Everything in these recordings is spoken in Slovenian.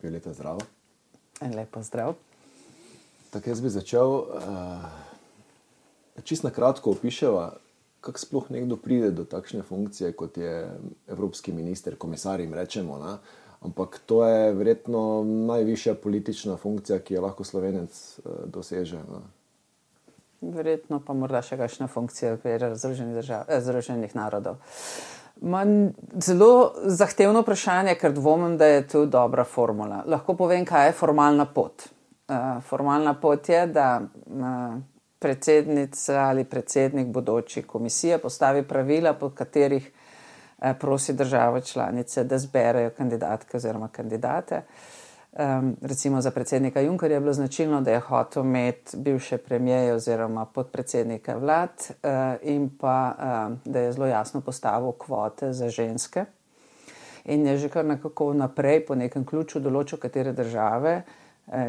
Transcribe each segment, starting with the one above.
Violeta, zdravo. Lepo zdrav. Tako jaz bi začel, čisto na kratko opiševa, kako sploh nekdo pride do takšne funkcije, kot je evropski minister, komisar jim rečemo, ne? Ampak to je verjetno najvišja politična funkcija, ki jo lahko Slovenec doseže. Ne? Verjetno pa morda še kakšna funkcija v okviru Združenih narodov. Zelo zahtevno vprašanje, ker dvomim, da je tu dobra formula. Lahko povem, kaj je formalna pot. Formalna pot je, da predsednica ali predsednik bodoči komisije postavi pravila, po katerih prosi države članice, da zberejo kandidatke oziroma kandidate. Recimo za predsednika Junckerja je bilo značilno, da je hotel imeti bivše premijeje oziroma podpredsednike vlad in pa da je zelo jasno postavil kvote za ženske in je že kar nekako naprej po nekem ključu določil, katere države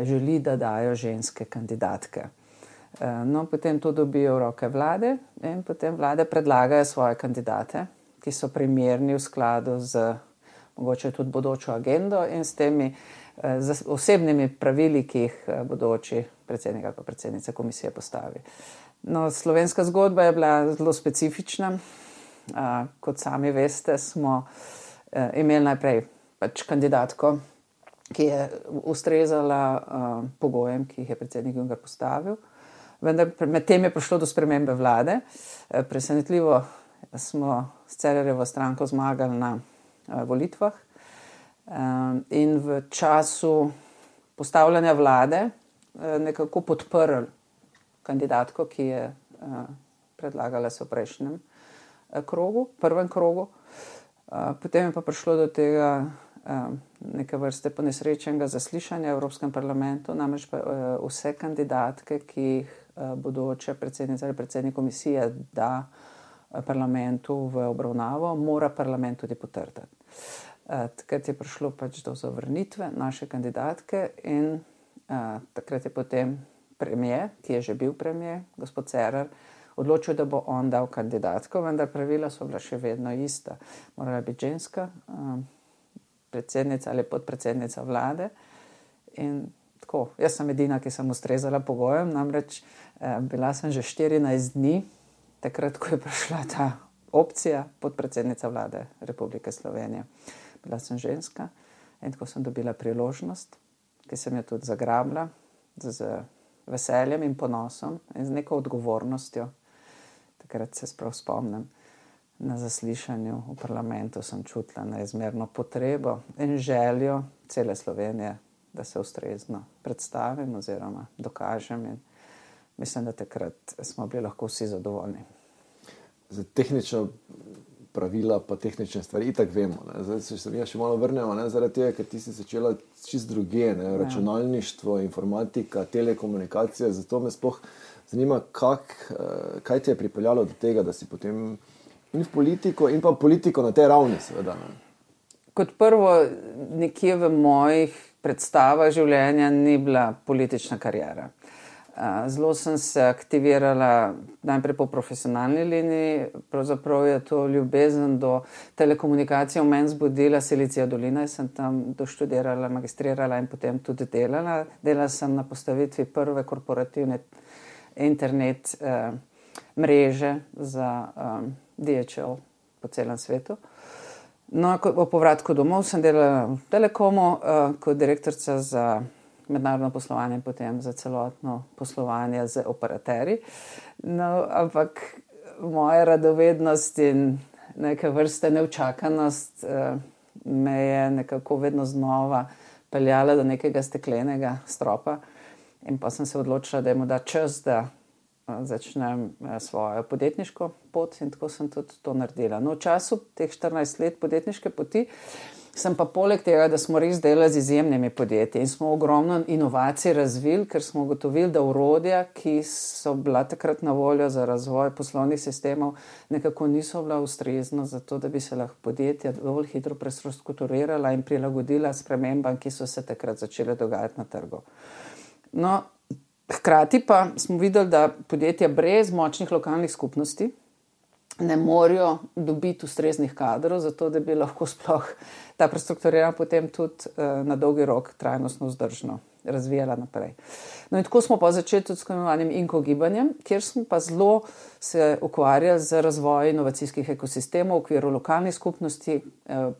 želi, da dajo ženske kandidatke. No, potem to dobijo v roke vlade in potem vlade predlagajo svoje kandidate, ki so primerni v skladu z mogoče tudi bodočo agendo in s temi z osebnimi pravili, ki jih bodoči predsednik ali pa predsednica komisije postavi. No, slovenska zgodba je bila zelo specifična. Kot sami veste, smo imeli najprej pač kandidatko, ki je ustrezala pogojem, ki jih je predsednik Juncker postavil. Vendar med tem je prišlo do spremembe vlade. Presenetljivo smo s Cerarjevo stranko zmagali na volitvah. In v času postavljanja vlade nekako podprl kandidatko, ki je predlagala se v prejšnjem krogu, prvem krogu. Potem je pa prišlo do tega neke vrste ponesrečenega zaslišanja v Evropskem parlamentu, namreč pa vse kandidatke, ki jih bodoče predsednica ali predsednik komisije da parlamentu v obravnavo, mora parlament tudi potrditi. Takrat je prišlo pač do zavrnitve naše kandidatke in takrat je potem premier, ki je že bil premier, gospod Cerar, odločil, da bo on dal kandidatko, vendar pravila so bila še vedno ista. Morala biti ženska, predsednica ali podpredsednica vlade in tako. Jaz sem edina, ki sem ustrezala pogojem, namreč bila sem že 14 dni, takrat, ko je prišla ta opcija podpredsednica vlade Republike Slovenije. Bila sem ženska in tako sem dobila priložnost, ki sem jo tudi zagrabila z veseljem in ponosom in z neko odgovornostjo. Takrat se sprav spomnim, na zaslišanju v parlamentu sem čutila neizmerno potrebo in željo cele Slovenije, da se ustrezno predstavim oziroma dokažem in mislim, da takrat smo bili lahko vsi zadovoljni. Za tehnično pravila pa tehnične stvari itak vemo. Ne? Zdaj se mi še malo vrnemo, ne? Zaradi tega, ker ti si začela čist druge, ne? Računalništvo, informatika, telekomunikacija, zato me sploh zanima, kaj te je pripeljalo do tega, da si potem in v politiko in pa politiko na tej ravni seveda. Ne? Kot prvo, nekje v mojih predstavah življenja ni bila politična kariera. Zelo sem se aktivirala najprej po profesionalni liniji, pravzaprav je to ljubezen do telekomunikacije v meni zbudila Silicija dolina, sem tam doštudirala, magistrirala in potem tudi delala. Delala sem na postavitvi prve korporativne internet mreže za DHL po celem svetu. No, po povratku domov sem delala v Telekomu kot direktorica za mednarodno poslovanje in potem za celotno poslovanje z operaterji. No, ampak moja radovednost in neke vrste neučakanost me je nekako vedno znova peljala do nekega steklenega stropa in pa sem se odločila, da je morda čas, da začnem svojo podjetniško pot in tako sem tudi to naredila. No, v času teh 14 let podjetniške poti sem pa poleg tega, da smo res delali z izjemnimi podjetji in smo ogromno inovacij razvili, ker smo ugotovili, da orodja, ki so bila takrat na voljo za razvoj poslovnih sistemov, nekako niso bila ustrezna za to, da bi se lahko podjetja dovolj hitro prestrukturirala in prilagodila spremembam, ki so se takrat začele dogajati na trgu. No, hkrati pa smo videli, da podjetja brez močnih lokalnih skupnosti ne morejo dobiti ustreznih kadrov, zato da bi lahko sploh ta prestrukturirana potem tudi na dolgi rok trajnostno vzdržno razvijala naprej. No in tako smo pa začeli tudi s tako imenovanim INCO gibanjem, kjer smo pa zelo se ukvarjali z razvojem inovacijskih ekosistemov v okviru lokalnih skupnosti,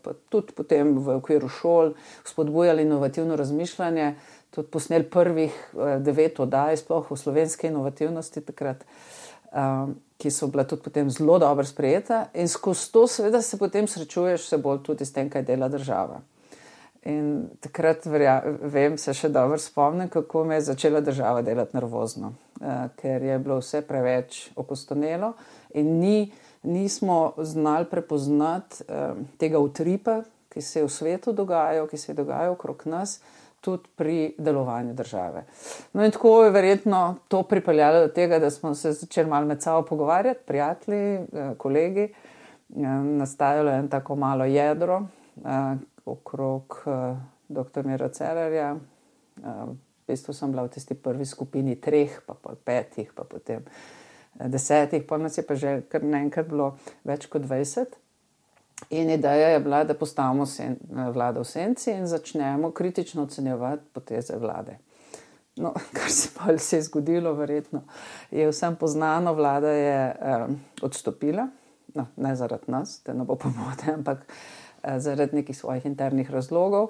pa tudi potem v okviru šol, spodbujali inovativno razmišljanje, tudi posneli prvih 9 oddaj sploh v slovenski inovativnosti takrat, ki so bila tudi potem zelo dobro sprejeta, in skozi to seveda se potem srečuješ vse bolj tudi s tem, kaj dela država. In takrat vem, se še dobro spomnim, kako me je začela država delati nervozno, ker je bilo vse preveč okostonelo in nismo znali prepoznati tega utripa, ki se je v svetu dogajal, ki se je dogajal okrog nas, tudi pri delovanju države. No in tako je verjetno to pripeljalo do tega, da smo se začeli malo med sabo pogovarjati, prijatelji, kolegi, nastajalo je tako malo jedro okrog dr. Mira Cerarja. V bistvu sem bila v tisti prvi skupini 3, pa 5, pa potem 10, pa nas je pa že kar naenkrat bilo več kot 20. In ideja je bila, da postavimo vlado v senci in začnemo kritično ocenjevati poteze vlade. No, kar se pa se je zgodilo, verjetno je vsem poznano, vlada je odstopila, no, ne zaradi nas, da ne bo pomote, ampak zaradi nekih svojih internih razlogov.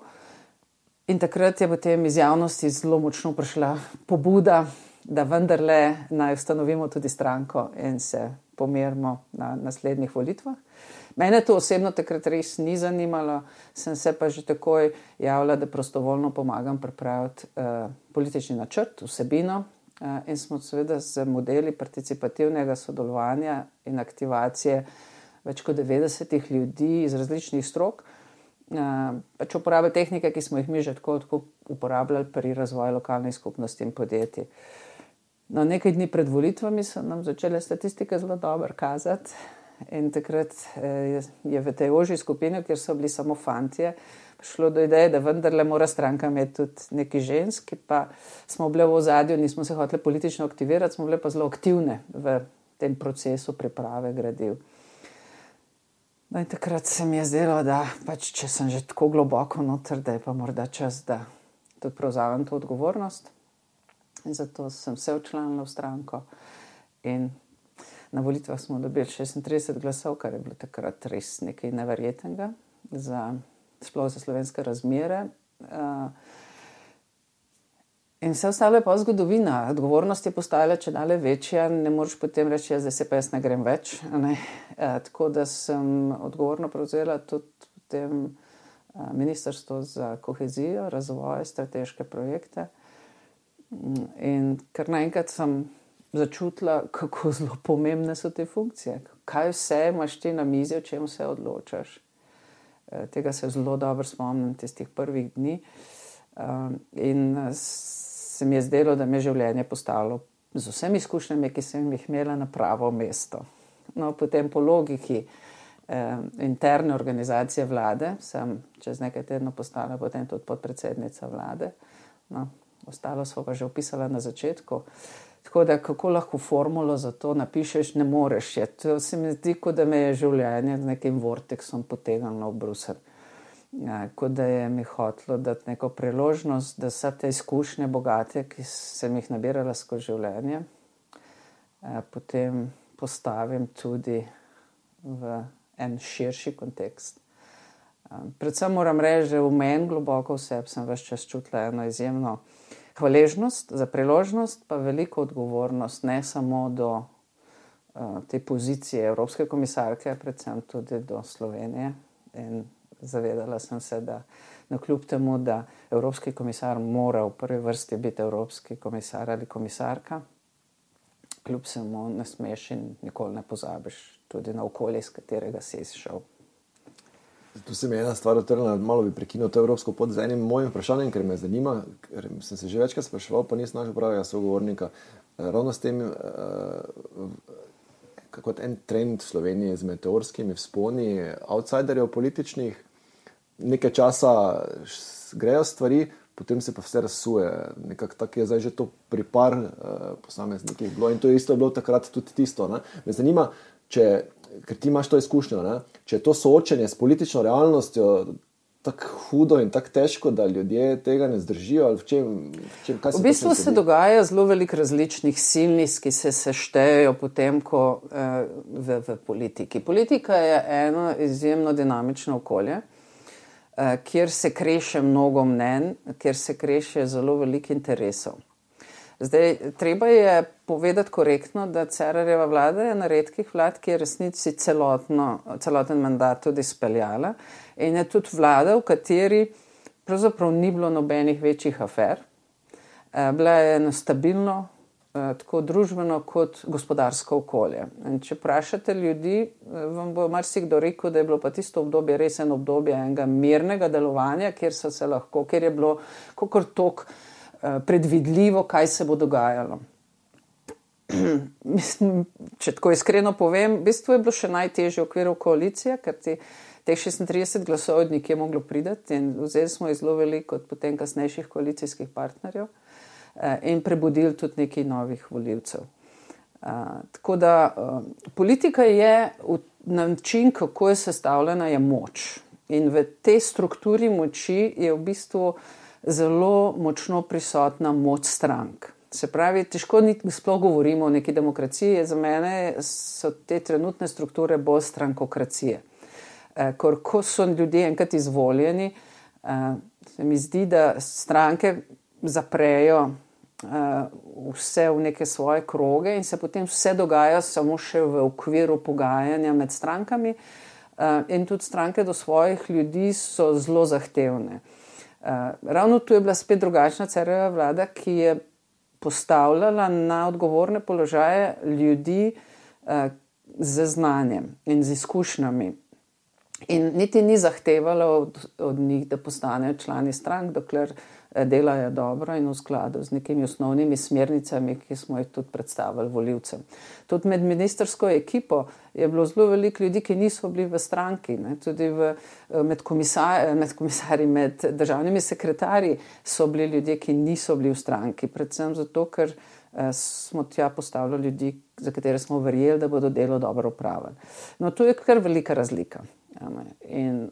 In takrat je potem iz javnosti zelo močno prišla pobuda, da vendarle naj ustanovimo tudi stranko in se pomerimo na naslednjih volitvah. Mene to osebno takrat res ni zanimalo, sem se pa že takoj javila, da prostovoljno pomagam pripraviti politični načrt, vsebino, in smo seveda z modeli participativnega sodelovanja in aktivacije več kot 90 ljudi iz različnih strok, pač uporabljali tehnike, ki smo jih mi že tako uporabljali pri razvoju lokalnih skupnosti in podjetij. No, nekaj dni pred volitvami so nam začele statistike zelo dobro kazati in takrat je v tej ožji skupini, kjer so bili samo fantje, prišlo do ideje, da vendarle mora stranka imeti tudi neki ženski, pa smo bile v ozadju, nismo se hoteli politično aktivirati, smo bile pa zelo aktivne v tem procesu priprave gradiv. No in takrat se mi je zdelo, da pač, če sem že tako globoko noter, da je pa morda čas, da tudi prevzamem to odgovornost. In zato sem se včlanila v stranko in na volitvah smo dobili 36 glasov, kar je bilo takrat res nekaj neverjetnega, sploh za slovenske razmere. In vse ostalo je pa zgodovina. Odgovornost je postajala čedalje večja, ne moreš potem reči, da se pa jaz ne grem več. Ne? Tako da sem odgovorno prevzela tudi potem Ministrstvo za kohezijo, razvoj, strateške projekte. In kar naenkrat sem začutila, kako zelo pomembne so te funkcije. Kaj vse imaš ti na mizi, o čem se odločaš. Tega se zelo dobro spomnim tistih prvih dni. In se mi je zdelo, da me življenje postavilo z vsemi izkušnjami, ki sem jih imela, na pravo mesto. No, potem po logiki interne organizacije vlade sem čez nekaj tednov postala potem tudi podpredsednica vlade. No, ostalo smo pa že opisala na začetku. Tako da kako lahko formulo za to napišeš, ne moreš. To se mi zdi, kot da me je življenje z nekim vorteksom potegnilo v Bruselj. Kot da je mi hotelo dati neko priložnost, da vse te izkušnje bogate, ki sem jih nabirala skozi življenje, potem postavim tudi v en širši kontekst. Predvsem moram reči, da v meni globoko vseb sem ves čas čutila eno izjemno hvaležnost za priložnost, pa veliko odgovornost, ne samo do te pozicije evropske komisarke, predvsem tudi do Slovenije. In zavedala sem se, da kljub temu, da evropski komisar mora v prvi vrsti biti evropski komisar ali komisarka, kljub vsemu ne smeš in nikoli ne pozabiš tudi na okolje, iz katerega si izšel. Tu se mi je ena stvar utrnila, malo bi prekinil to evropsko pot z enim mojim vprašanjem, ker me zanima, ker sem se že večkrat spraševal, pa nisem našel pravega sogovornika. Ravno s tem, kot en trend v Sloveniji z meteorskimi vzponi outsiderjev političnih, nekaj časa grejo stvari, potem se pa vse razsuje. Nekako tako je zdaj že to pri par posameznikih bilo in to isto je bilo takrat tudi tisto. Ne? Me zanima, če ker ti imaš to izkušnjo, ne? Če je to soočenje s politično realnostjo tako hudo in tako težko, da ljudje tega ne zdržijo, ali kaj se v bistvu se dogaja zelo veliko različnih silnic, ki se seštejejo potem, ko v politiki. Politika je eno izjemno dinamično okolje, kjer se kreše mnogo mnenj, kjer se kreše zelo veliko interesov. Zdaj, treba je povedati korektno, da Cerarjeva vlada je na redkih vlad, ki je resnici celoten mandat tudi speljala in je tudi vlada, v kateri pravzaprav ni bilo nobenih večjih afer. Bila je eno stabilno, tako družbeno kot gospodarsko okolje. In če vprašate ljudi, vam bo marsikdo rekel, da je bilo pa tisto obdobje res eno obdobje enega mirnega delovanja, kjer je bilo kakor toliko predvidljivo, kaj se bo dogajalo. Mislim, če tako iskreno povem, v bistvu je bilo še najtežje v okviru koalicije, ker teh 36 glasov od nekje moglo priti in vzeli smo zelo veliko od potem kasnejših koalicijskih partnerjev in prebudili tudi nekaj novih volivcev. Tako da politika je način, kako je sestavljena, je moč. In v tej strukturi moči je v bistvu zelo močno prisotna moč strank. Se pravi, težko sploh govorimo o neki demokraciji, za mene so te trenutne strukture bolj strankokracije. Ko so ljudje enkrat izvoljeni, se mi zdi, da stranke zaprejo vse v neke svoje kroge in se potem vse dogaja samo še v okviru pogajanja med strankami in tudi stranke do svojih ljudi so zelo zahtevne. Ravno tu je bila spet drugačna Cerarjeva vlada, ki je postavljala na odgovorne položaje ljudi z znanjem in z izkušnjami. In niti ni zahtevala od njih, da postanejo člani strank, dokler delajo dobro in v skladu z nekimi osnovnimi smernicami, ki smo jih tudi predstavili volivcem. Tudi med ministrsko ekipo je bilo zelo veliko ljudi, ki niso bili v stranki, ne? Tudi med komisarji, med državnimi sekretarji so bili ljudje, ki niso bili v stranki, predvsem zato, ker smo tja postavili ljudi, za katere smo verjeli, da bodo delo dobro opravili. No, to je kar velika razlika. In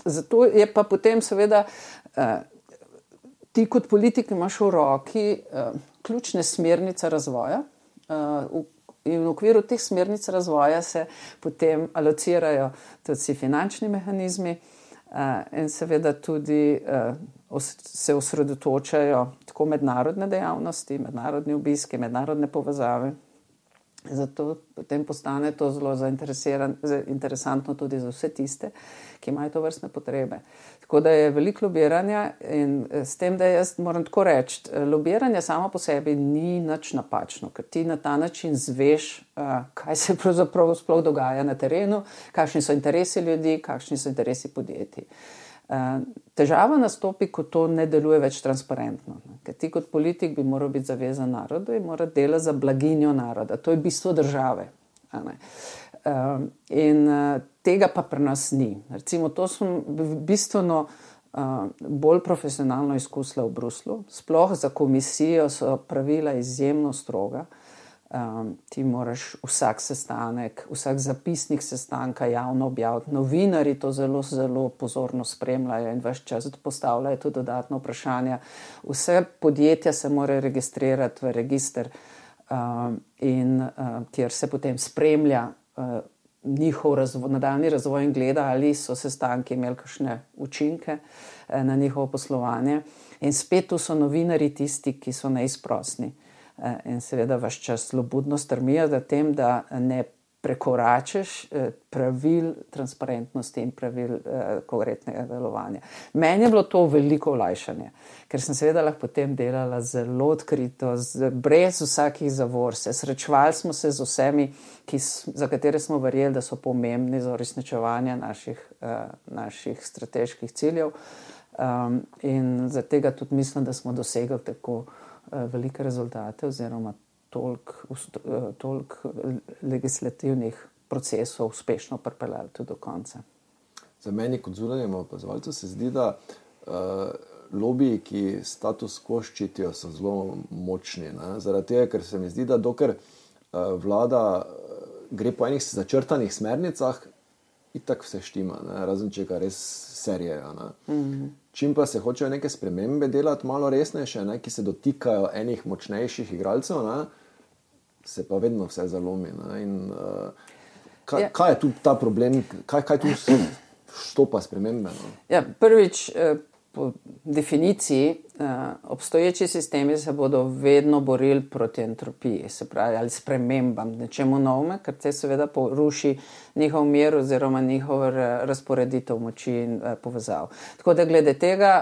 zato je pa potem seveda ti kot politik imaš v roki ključne smernice razvoja in v okviru teh smernic razvoja se potem alocirajo tudi finančni mehanizmi in seveda tudi se osredotočajo tako mednarodne dejavnosti, mednarodni obiski, mednarodne povezave. Zato potem postane to zelo interesantno tudi za vse tiste, ki imajo to vrstne potrebe. Tako da je veliko lobiranja in s tem, da jaz moram tako reči, lobiranje samo po sebi ni nič napačno, ker ti na ta način zveš, kaj se pravzaprav sploh dogaja na terenu, kakšni so interesi ljudi, kakšni so interesi podjetij. Težava nastopi, ko to ne deluje več transparentno. Ker ti kot politik bi moral biti zavezan narodu in mora delati za blaginjo naroda. To je bistvo države. In tega pa pri nas ni. Recimo, to sem bistveno bolj profesionalno izkusila v Bruslu. Sploh za komisijo so pravila izjemno stroga. Ti moraš vsak sestanek, vsak zapisnik sestanka javno objaviti. Novinarji to zelo, zelo pozorno spremljajo in ves čas postavljajo tudi dodatno vprašanja. Vse podjetja se morajo registrirati v register kjer se potem spremlja njihov nadaljnji razvoj in gleda, ali so sestanki imeli kakšne učinke na njihovo poslovanje. In spet tu so novinarji tisti, ki so neizprosni. In seveda vaš čas slobodno strmijo za tem, da ne prekoračeš pravil transparentnosti in pravil korektnega delovanja. Meni je bilo to veliko olajšanje, ker sem seveda lahko potem delala zelo odkrito, brez vsakih zavor. Srečevali smo se z vsemi, za katere smo verjeli, da so pomembni za uresničevanje naših strateških ciljev. In za tega tudi mislim, da smo dosegli tako velike rezultate oziroma toliko legislativnih procesov uspešno pripeljali tudi do konca. Za meni kot zunanjemu opazovalcu se zdi, da lobiji, ki status quo ščitijo, so zelo močni. Ne? Zaradi tega, ker se mi zdi, da dokler vlada gre po enih začrtanih smernicah, itak vse štima, ne? Razen če ga res serijejo. Čim pa se hočejo neke spremembe delati malo resnejše, ne? Ki se dotikajo enih močnejših igralcev, ne? Se pa vedno vse zalomi. Ne? In kaj je tu ta problem, kaj tu štopa spremembe? No? Ja, prvič, po definiciji, obstoječi sistemi se bodo vedno borili proti entropiji, se pravi, ali spremembam, nečemu novemu, ker te seveda poruši njihov mir oziroma njihov razporeditev moči in povezav. Tako da glede tega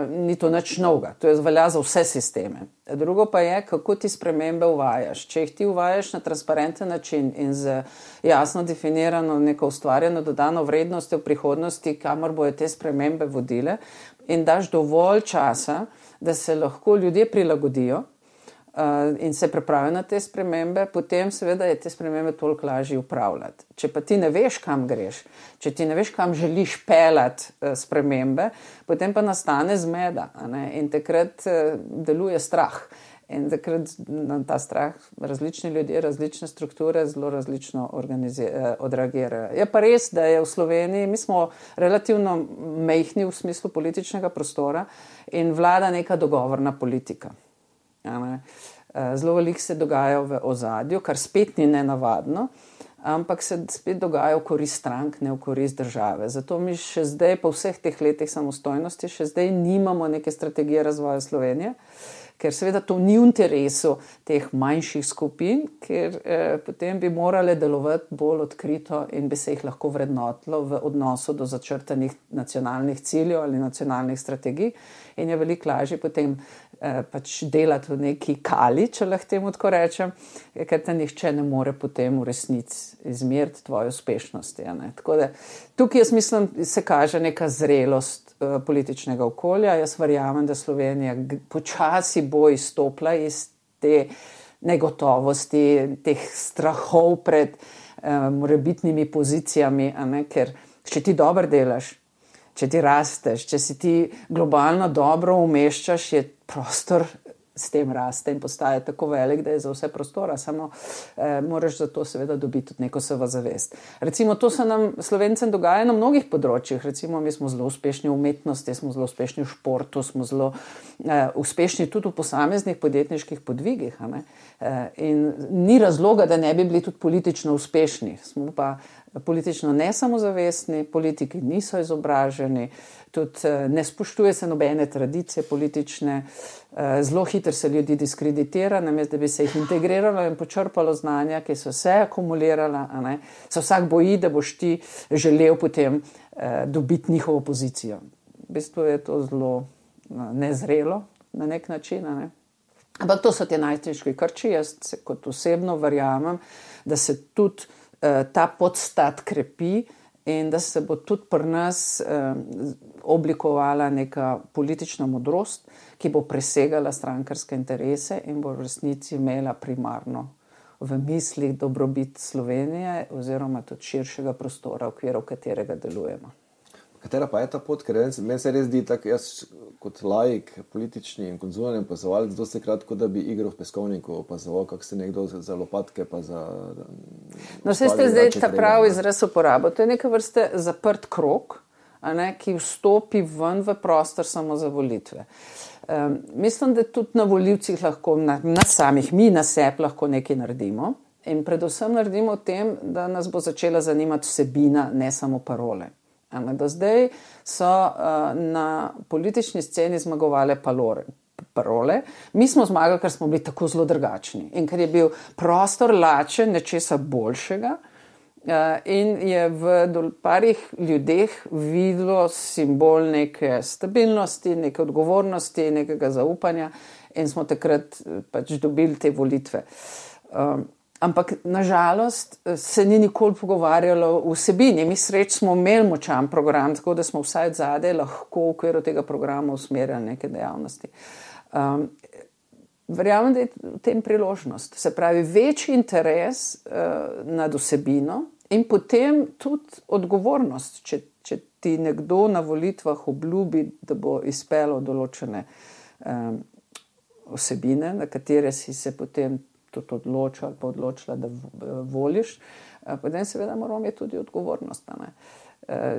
ni to nič novega, to je velja za vse sisteme. Drugo pa je, kako ti spremembe uvajaš. Če jih ti uvajaš na transparenten način in z jasno definirano neko ustvarjeno dodano vrednostjo v prihodnosti, kamor bojo te spremembe vodile, in daš dovolj časa, da se lahko ljudje prilagodijo in se pripravijo na te spremembe, potem seveda je te spremembe toliko lažje upravljati. Če pa ti ne veš, kam greš, če ti ne veš, kam želiš peljati spremembe, potem pa nastane zmeda, ne? In takrat deluje strah. In takrat na ta strah različni ljudje, različne strukture zelo različno odreagirajo. Je pa res, da je v Sloveniji, mi smo relativno majhni v smislu političnega prostora in vlada neka dogovorna politika. Zelo veliko se dogaja v ozadju, kar spet ni nenavadno, ampak se spet dogaja v korist strank, ne v korist države. Zato mi še zdaj, po vseh teh letih samostojnosti, še zdaj nimamo neke strategije razvoja Slovenije, ker seveda to ni v interesu teh manjših skupin, ker potem bi morale delovati bolj odkrito in bi se jih lahko vrednotilo v odnosu do začrtanih nacionalnih ciljev ali nacionalnih strategij in je veliko lažje potem pač delati v neki kali, če lahko temu tako rečem, ker te nihče ne more potem v resnici izmeriti tvoje uspešnosti. Tako da tukaj jaz mislim, se kaže neka zrelost političnega okolja. Jaz verjamem, da Slovenija počasi bo izstopila iz te negotovosti, teh strahov pred morebitnimi pozicijami, ker če ti dobro delaš, če ti rasteš, če si ti globalno dobro umeščaš, je prostor s tem raste in postaje tako velik, da je za vse prostora, samo moraš za to seveda dobiti tudi neko samozavest. Recimo, to se nam Slovencem dogaja na mnogih področjih. Recimo, mi smo zelo uspešni v umetnosti, smo zelo uspešni v športu, smo zelo uspešni tudi v posameznih podjetniških podvigih. In ni razloga, da ne bi bili tudi politično uspešni. Smo pa politično nesamozavestni, politiki niso izobraženi, tudi ne spoštuje se nobene tradicije politične, zelo hitro se ljudi diskreditira, namesto da bi se jih integriralo in počrpalo znanja, ki so se akumulirala, se vsak boji, da boš ti želel potem dobiti njihovo pozicijo. V bistvu je to zelo nezrelo na nek način. Ampak to so te najtežji krči. Jaz kot osebno verjamem, da se tudi ta podstat krepi in da se bo tudi pri nas oblikovala neka politična modrost, ki bo presegala strankarske interese in bo v resnici imela primarno v mislih dobrobit Slovenije oziroma tudi širšega prostora, v okviru katerega delujemo. Katera pa je ta pot? Ker meni se res zdi tako, jaz kot laik, politični in konzulni opazovalec, dosti kratko, da bi igro v peskovniku opazoval, kako se nekdo za lopatke pa za... No, vse ste zdaj ta pravi izraz uporabo. To je neka vrste zaprt krog, ki vstopi ven v prostor samo za volitve. Mislim, da tudi na volivcih lahko, na samih, mi na sebi lahko nekaj naredimo in predvsem naredimo v tem, da nas bo začela zanimati vsebina, ne samo parole. Do zdaj so na politični sceni zmagovale parole. Mi smo zmagali, ker smo bili tako zelo drugačni in ker je bil prostor lačen nečesa boljšega in je v parih ljudeh videlo simbol neke stabilnosti, neke odgovornosti, nekega zaupanja in smo takrat pač dobili te volitve. Ampak nažalost se ni nikoli pogovarjalo v vsebini. Mi sreč smo imeli močan program, tako da smo vsaj zadaj lahko v okviru tega programa usmerjali neke dejavnosti. Verjamem, da je v tem priložnost. Se pravi, večji interes nad vsebino in potem tudi odgovornost, če ti nekdo na volitvah obljubi, da bo izpeljal določene vsebine, na katere si se potem tudi odločil ali pa odločila, da voliš, potem seveda moramo imeti tudi odgovornost.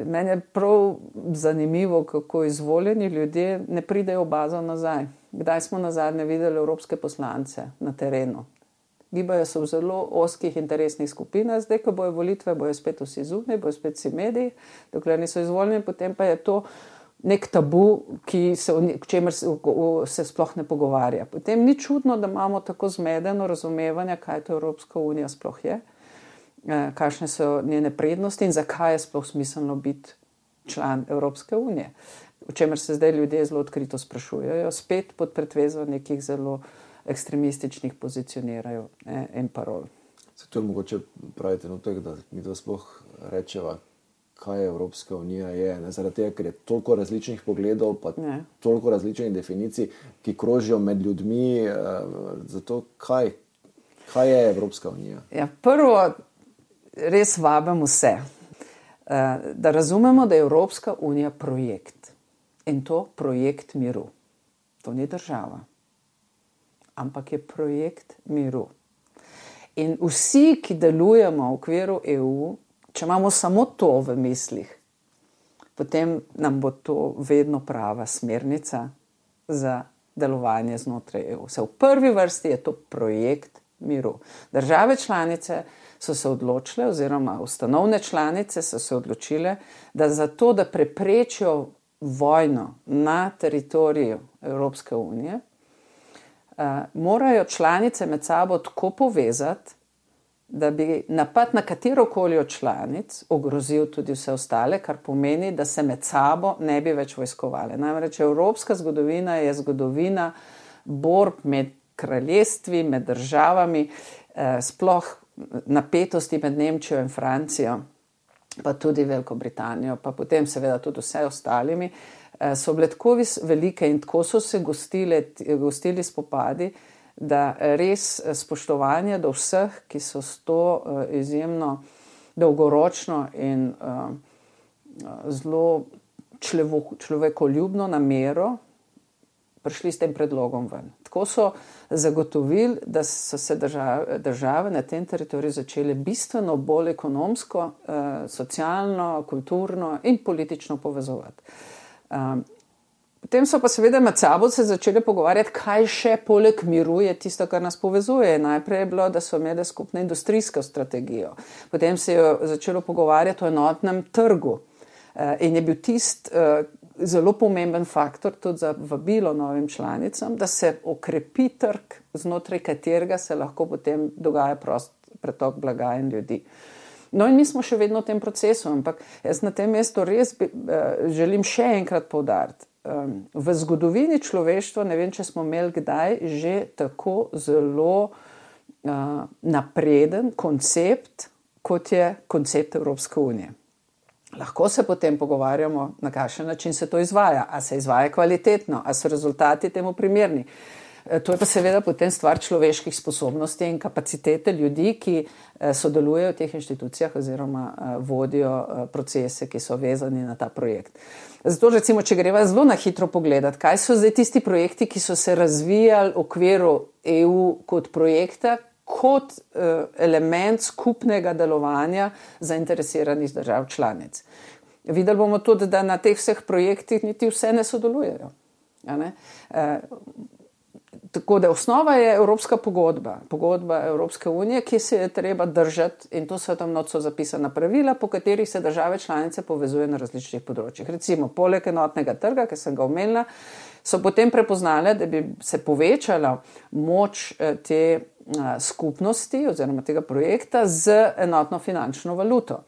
Meni je prav zanimivo, kako izvoljeni ljudje ne pridejo v bazo nazaj. Kdaj smo nazadnje videli evropske poslance na terenu? Gibajo se v zelo ozkih interesnih skupinah, zdaj, ko bojo volitve, bojo spet vsi zunaj, bojo spet vsi mediji, dokler niso izvoljeni, potem pa je to nek tabu, k čemer se sploh ne pogovarja. Potem ni čudno, da imamo tako zmedeno razumevanje, kaj to Evropska unija sploh je, kakšne so njene prednosti in zakaj je sploh smiselno biti član Evropske unije. O čemer se zdaj ljudje zelo odkrito sprašujejo, spet pod pretvezo nekih zelo ekstremističnih pozicionirajo in parol. Zato je mogoče pravi trenutek, da mi to sploh rečeva, kaj Evropska unija je. Zaradi tega, ker je toliko različnih pogledov, pa toliko različnih definicij, ki krožijo med ljudmi. Zato kaj je Evropska unija? Ja, prvo, res vabim vse, da razumemo, da je Evropska unija projekt. In to projekt miru. To ni država, ampak je projekt miru. In vsi, ki delujemo v okviru EU, če imamo samo to v mislih, potem nam bo to vedno prava smernica za delovanje znotraj EU. V prvi vrsti je to projekt miru. Države članice so se odločile, oziroma ustanovne članice so se odločile, da zato, da preprečijo vojno na teritoriju Evropske unije, morajo članice med sabo tako povezati, da bi napad na katerokoli od članic ogrozil tudi vse ostale, kar pomeni, da se med sabo ne bi več vojskovali. Namreč evropska zgodovina je zgodovina borb med kraljestvi, med državami, sploh napetosti med Nemčijo in Francijo, pa tudi Veliko Britanijo, pa potem seveda tudi vse ostalimi, so bile tako velike in tako so se gostili spopadi, da res spoštovanje do vseh, ki so s to izjemno dolgoročno in zelo človekoljubno namero prišli s tem predlogom ven. Tako so zagotovili, da so se države na tem teritoriju začele bistveno bolj ekonomsko, socialno, kulturno in politično povezovati. Potem so pa seveda med sabo se začeli pogovarjati, kaj še poleg miru je tisto, kar nas povezuje. Najprej je bilo, da so imeli skupno industrijsko strategijo. Potem se je začelo pogovarjati o enotnem trgu. In je bil zelo pomemben faktor tudi za vabilo novim članicam, da se okrepi trg, znotraj katerega se lahko potem dogaja prost pretok blaga in ljudi. No in mi smo še vedno v tem procesu, ampak jaz na tem mestu res želim še enkrat poudariti. V zgodovini človeštva, ne vem, če smo imeli kdaj, že tako zelo napreden koncept, kot je koncept Evropske unije. Lahko se potem pogovarjamo, na kakšen način se to izvaja, a se izvaja kvalitetno, a so rezultati temu primerni. To je pa seveda potem stvar človeških sposobnosti in kapacitete ljudi, ki sodelujejo v teh inštitucijah oziroma vodijo procese, ki so vezani na ta projekt. Zato recimo, če greva zelo na hitro pogledati, kaj so zdaj tisti projekti, ki so se razvijali v okviru EU kot projekta, kot element skupnega delovanja zainteresiranih držav članic. Videli bomo tudi, da na teh vseh projektih niti vse ne sodelujejo. Tako da osnova je Evropska pogodba, pogodba Evropske unije, ki se je treba držati, in to so tam noč zapisana pravila, po katerih se države članice povezuje na različnih področjih. Recimo, poleg enotnega trga, ki sem ga omenila, so potem prepoznale, da bi se povečala moč te skupnosti oziroma tega projekta z enotno finančno valuto.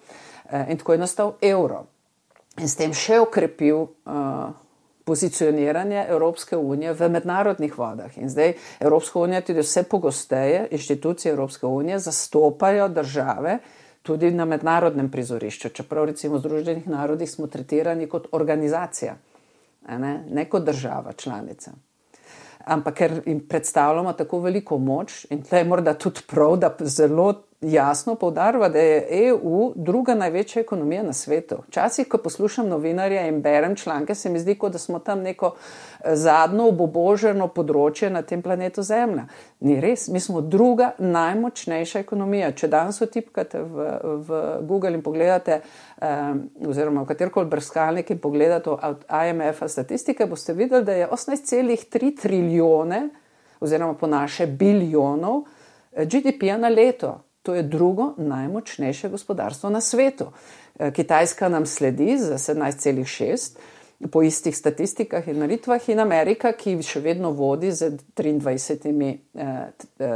In tako je nastal evro. In s tem še okrepil pozicioniranje Evropske unije v mednarodnih vodah. In zdaj Evropska unija tudi vse pogosteje, inštitucije Evropske unije zastopajo države tudi na mednarodnem prizorišču. Čeprav recimo v Združenih narodih smo tretirani kot organizacija, ne kot država članica. Ampak ker jim predstavljamo tako veliko moč, in tle je morda tudi prav, da zelo jasno poudarjava, da je EU druga največja ekonomija na svetu. Včasih, ko poslušam novinarje in berem članke, se mi zdi, kot da smo tam neko zadnjo obuboženo področje na tem planetu Zemlja. Ni res, mi smo druga najmočnejša ekonomija. Če danes vtipkate v Google in pogledate, oziroma v katerkoli brskalnik in pogledate od IMF-a statistike, boste videli, da je 18,3 trilijone, oziroma po naše biljonov, GDP-ja na leto. To je drugo najmočnejše gospodarstvo na svetu. Kitajska nam sledi za 17,6 po istih statistikah in meritvah in Amerika, ki še vedno vodi z 23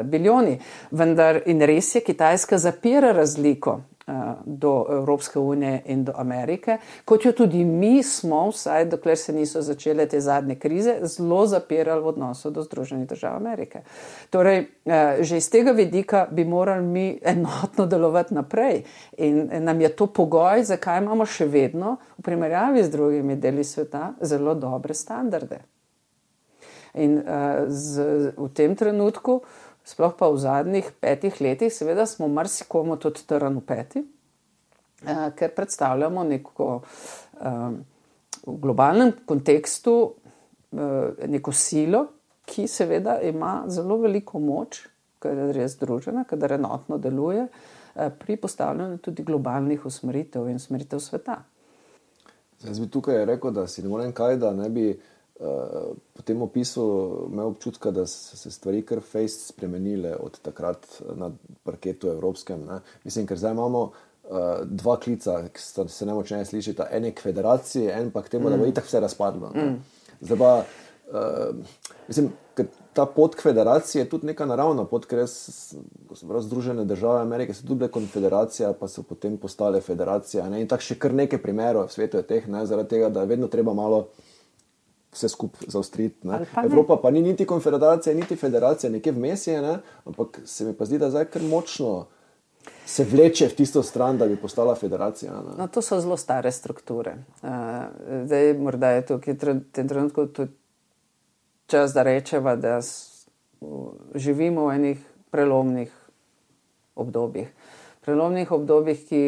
bilijoni. Vendar in res je, Kitajska zapira razliko do Evropske unije in do Amerike, kot jo tudi mi smo, vsaj dokler se niso začele te zadnje krize, zelo zapirali v odnosu do Združenih držav Amerike. Torej, že iz tega vidika bi morali mi enotno delovati naprej in nam je to pogoj, zakaj imamo še vedno v primerjavi z drugimi deli sveta zelo dobre standarde. In v tem trenutku, sploh pa v zadnjih 5 letih, seveda smo marsikomu tudi trn v peti, ker predstavljamo neko v globalnem kontekstu neko silo, ki seveda ima zelo veliko moč, kadar je združena, kadar enotno deluje, pri postavljanju tudi globalnih usmeritev in usmeritev sveta. Zdaj bi tukaj rekel, da si ne morem kaj, da ne bi po tem opisu imel občutka, da so se stvari kar fejst spremenile od takrat na parketu evropskem. Ne? Mislim, ker zdaj imamo dva klica, ki se nemočneje slišita. En je k federaciji, en pa k temu, da bo itak vse razpadlo. Zdaj pa, mislim, ker ta pot k federaciji je tudi neka naravna pot, ker Združene države Amerike so tudi konfederacija, pa so potem postale federacija. Ne? In tako še kar nekaj primerov v svetu je teh, ne? Zaradi tega, da je vedno treba malo vse skupaj zaostriti. Evropa pa ni niti konfederacija, niti federacija, nekje vmes je, ne? Ampak se mi pa zdi, da zdaj kar močno se vleče v tisto stran, da bi postala federacija. Ne? No, to so zelo stare strukture. Zdaj morda je tukaj v tem trenutku tudi čas, da rečeva, da živimo v enih prelomnih obdobjih. Prelomnih obdobjih, ki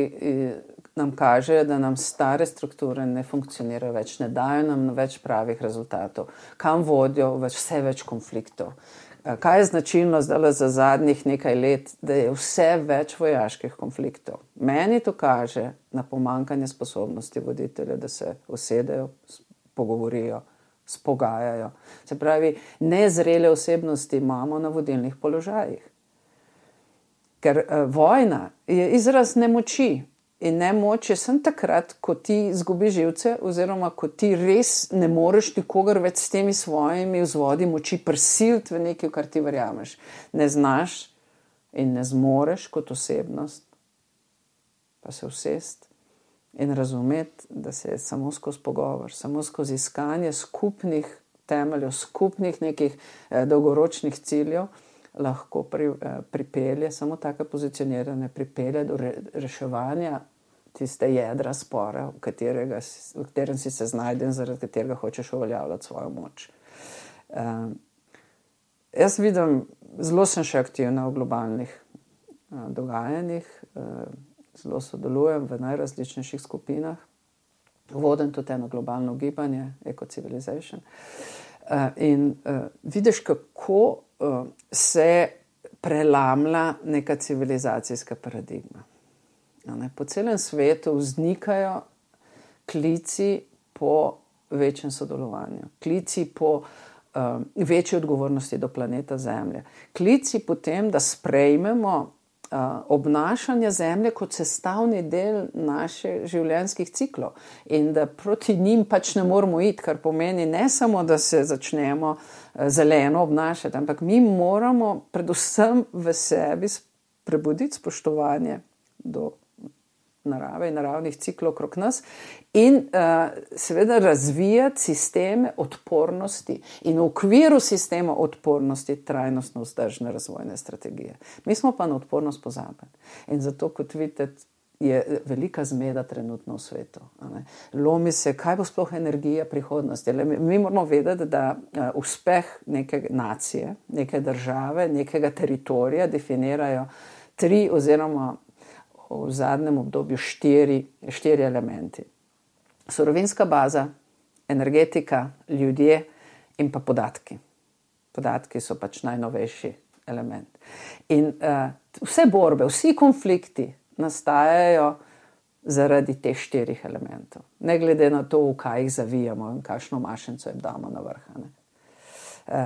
nam kaže, da nam stare strukture ne funkcionirajo več, ne dajo nam več pravih rezultatov. Kam vodijo vse več konfliktov? Kaj je značilno zdaj za zadnjih nekaj let, da je vse več vojaških konfliktov? Meni to kaže na pomanjkanje sposobnosti voditelja, da se usedejo, pogovorijo, spogajajo. Se pravi, nezrele osebnosti imamo na vodilnih položajih. Ker vojna je izraz nemoči. In nemoč je samo takrat, ko ti izgubiš živce oziroma ko ti res ne moreš nikogar več s temi svojimi vzvodi moči prisiliti v nekaj, kar ti verjameš. Ne znaš in ne zmoreš kot osebnost pa se usesti in razumeti, da se je samo skozi pogovor, samo skozi iskanje skupnih temeljev, skupnih nekih dolgoročnih ciljev lahko pripelje, samo tako pozicioniranje pripelje do reševanja tiste jedra spora, v katerem si se znajden, zaradi katerega hočeš uveljavljati svojo moč. Jaz vidim, zelo sem še aktivna v globalnih dogajanjih, zelo sodelujem v najrazličnejših skupinah, vodim tudi eno globalno gibanje, Eco-Civilization. In vidiš, kako se prelamlja neka civilizacijska paradigma. Po celem svetu vznikajo klici po večjem sodelovanju, klici po večji odgovornosti do planeta Zemlje, klici po tem, da sprejmemo obnašanje Zemlje kot sestavni del naših življenjskih ciklov in da proti njim pač ne moramo iti, kar pomeni ne samo, da se začnemo zeleno obnašati, ampak mi moramo predvsem v sebi prebuditi spoštovanje do narave in naravnih ciklov okrog nas in seveda razvijati sisteme odpornosti in v okviru sistema odpornosti trajnostno vzdržne razvojne strategije. Mi smo pa na odpornost pozabili in zato, kot vidite, je velika zmeda trenutno v svetu. Lomi se, kaj bo sploh energija prihodnosti. Mi moramo vedeti, da uspeh neke nacije, neke države, nekega teritorija definirajo 3 oziroma v zadnjem obdobju 4 elementi. Surovinska baza, energetika, ljudje in pa podatki. Podatki so pač najnovejši element. In vse borbe, vsi konflikti nastajajo zaradi teh 4 elementov. Ne glede na to, v kaj jih zavijamo in kakšno mašnico jim damo na vrh.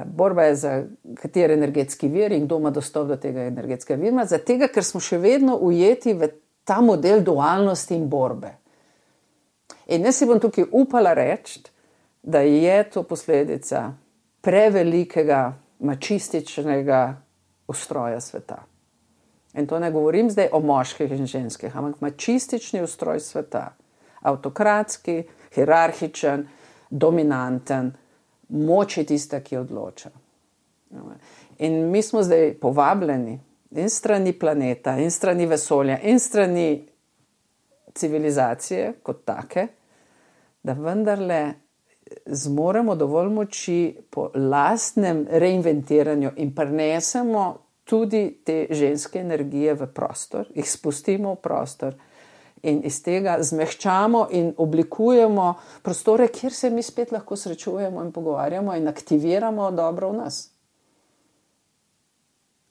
Borba je za kateri energetski vir in kdo ima dostop do tega energetskega vira, zato ker smo še vedno ujeti v ta model dualnosti in borbe. In jaz si bom tukaj upala reči, da je to posledica prevelikega mačističnega ustroja sveta. In to ne govorim zdaj o moških in ženskih, ampak mačistični ustroj sveta. Avtokratski, hierarhičen, dominanten, moč je tista, ki odloča. In mi smo zdaj povabljeni in strani planeta, in strani vesolja, in strani civilizacije kot take, da vendarle zmoremo dovolj moči po lastnem reinventiranju in prinesemo tudi te ženske energije v prostor, jih spustimo v prostor in iz tega zmehčamo in oblikujemo prostore, kjer se mi spet lahko srečujemo in pogovarjamo in aktiviramo dobro v nas.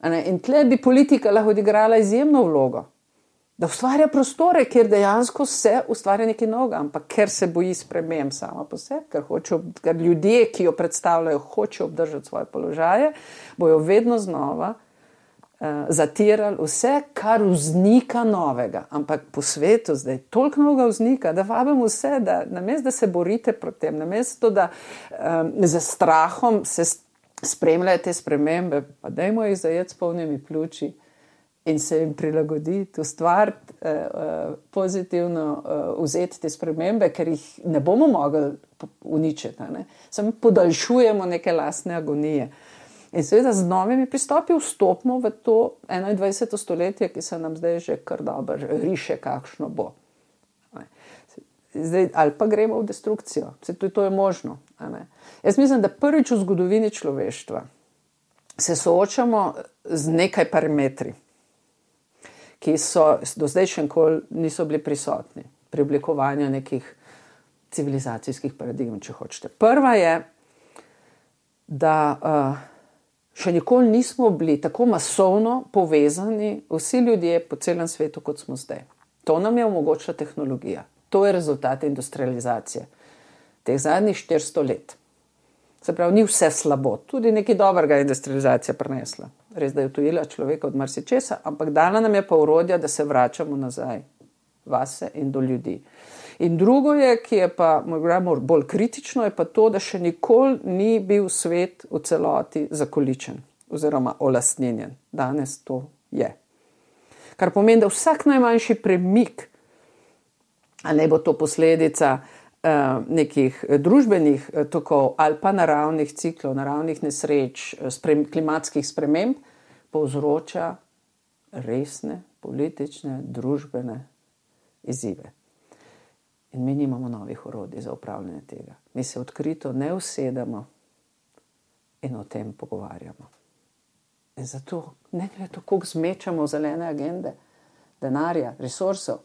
In tle bi politika lahko odigrala izjemno vlogo, da ustvarja prostore, kjer dejansko se ustvarja nekaj novega, ampak ker se boji sprememb sama po sebi, ker ljudje, ki jo predstavljajo, hočejo obdržati svoje položaje, bojo vedno znova zatirali vse, kar vznika novega. Ampak po svetu zdaj toliko novega vznika, da vabim vse, da namesto da se borite proti tem, namesto da za strahom se spremljajo te spremembe, pa dajmo jih zajeti s polnimi pljuči in se jim prilagoditi, ustvariti, pozitivno vzeti te spremembe, ker jih ne bomo mogli uničiti. Samo podaljšujemo neke lastne agonije. In seveda z novimi pristopi vstopimo v to 21. stoletje, ki se nam zdaj že kar dobro riše, kakšno bo. Zdaj, ali pa gremo v destrukcijo. To je možno. Jaz mislim, da prvič v zgodovini človeštva se soočamo z nekaj parametri, ki so do zdaj še nikoli niso bili prisotni pri oblikovanju nekih civilizacijskih paradigm, če hočete. Prva je, da še nikoli nismo bili tako masovno povezani vsi ljudje po celem svetu, kot smo zdaj. To nam je omogočila tehnologija. To je rezultat industrializacije teh zadnjih 400 let. Se pravi, ni vse slabo. Tudi nekaj dobrega industrializacija prinesla. Res, da je utujila človeka od marsičesa, ampak dala nam je pa orodja, da se vračamo nazaj vase in do ljudi. In drugo je, ki je pa bolj kritično, je pa to, da še nikoli ni bil svet v celoti zakoličen oziroma olastninjen. Danes to je. Kar pomeni, da vsak najmanjši premik, a ne bo to posledica nekih družbenih tokov ali pa naravnih ciklov, naravnih nesreč, klimatskih sprememb, povzroča resne politične, družbene izzive. In mi nimamo novih orodij za upravljanje tega. Mi se odkrito ne usedemo in o tem pogovarjamo. In zato ne glede to, koliko zmečamo zelene agende, denarja, resursov,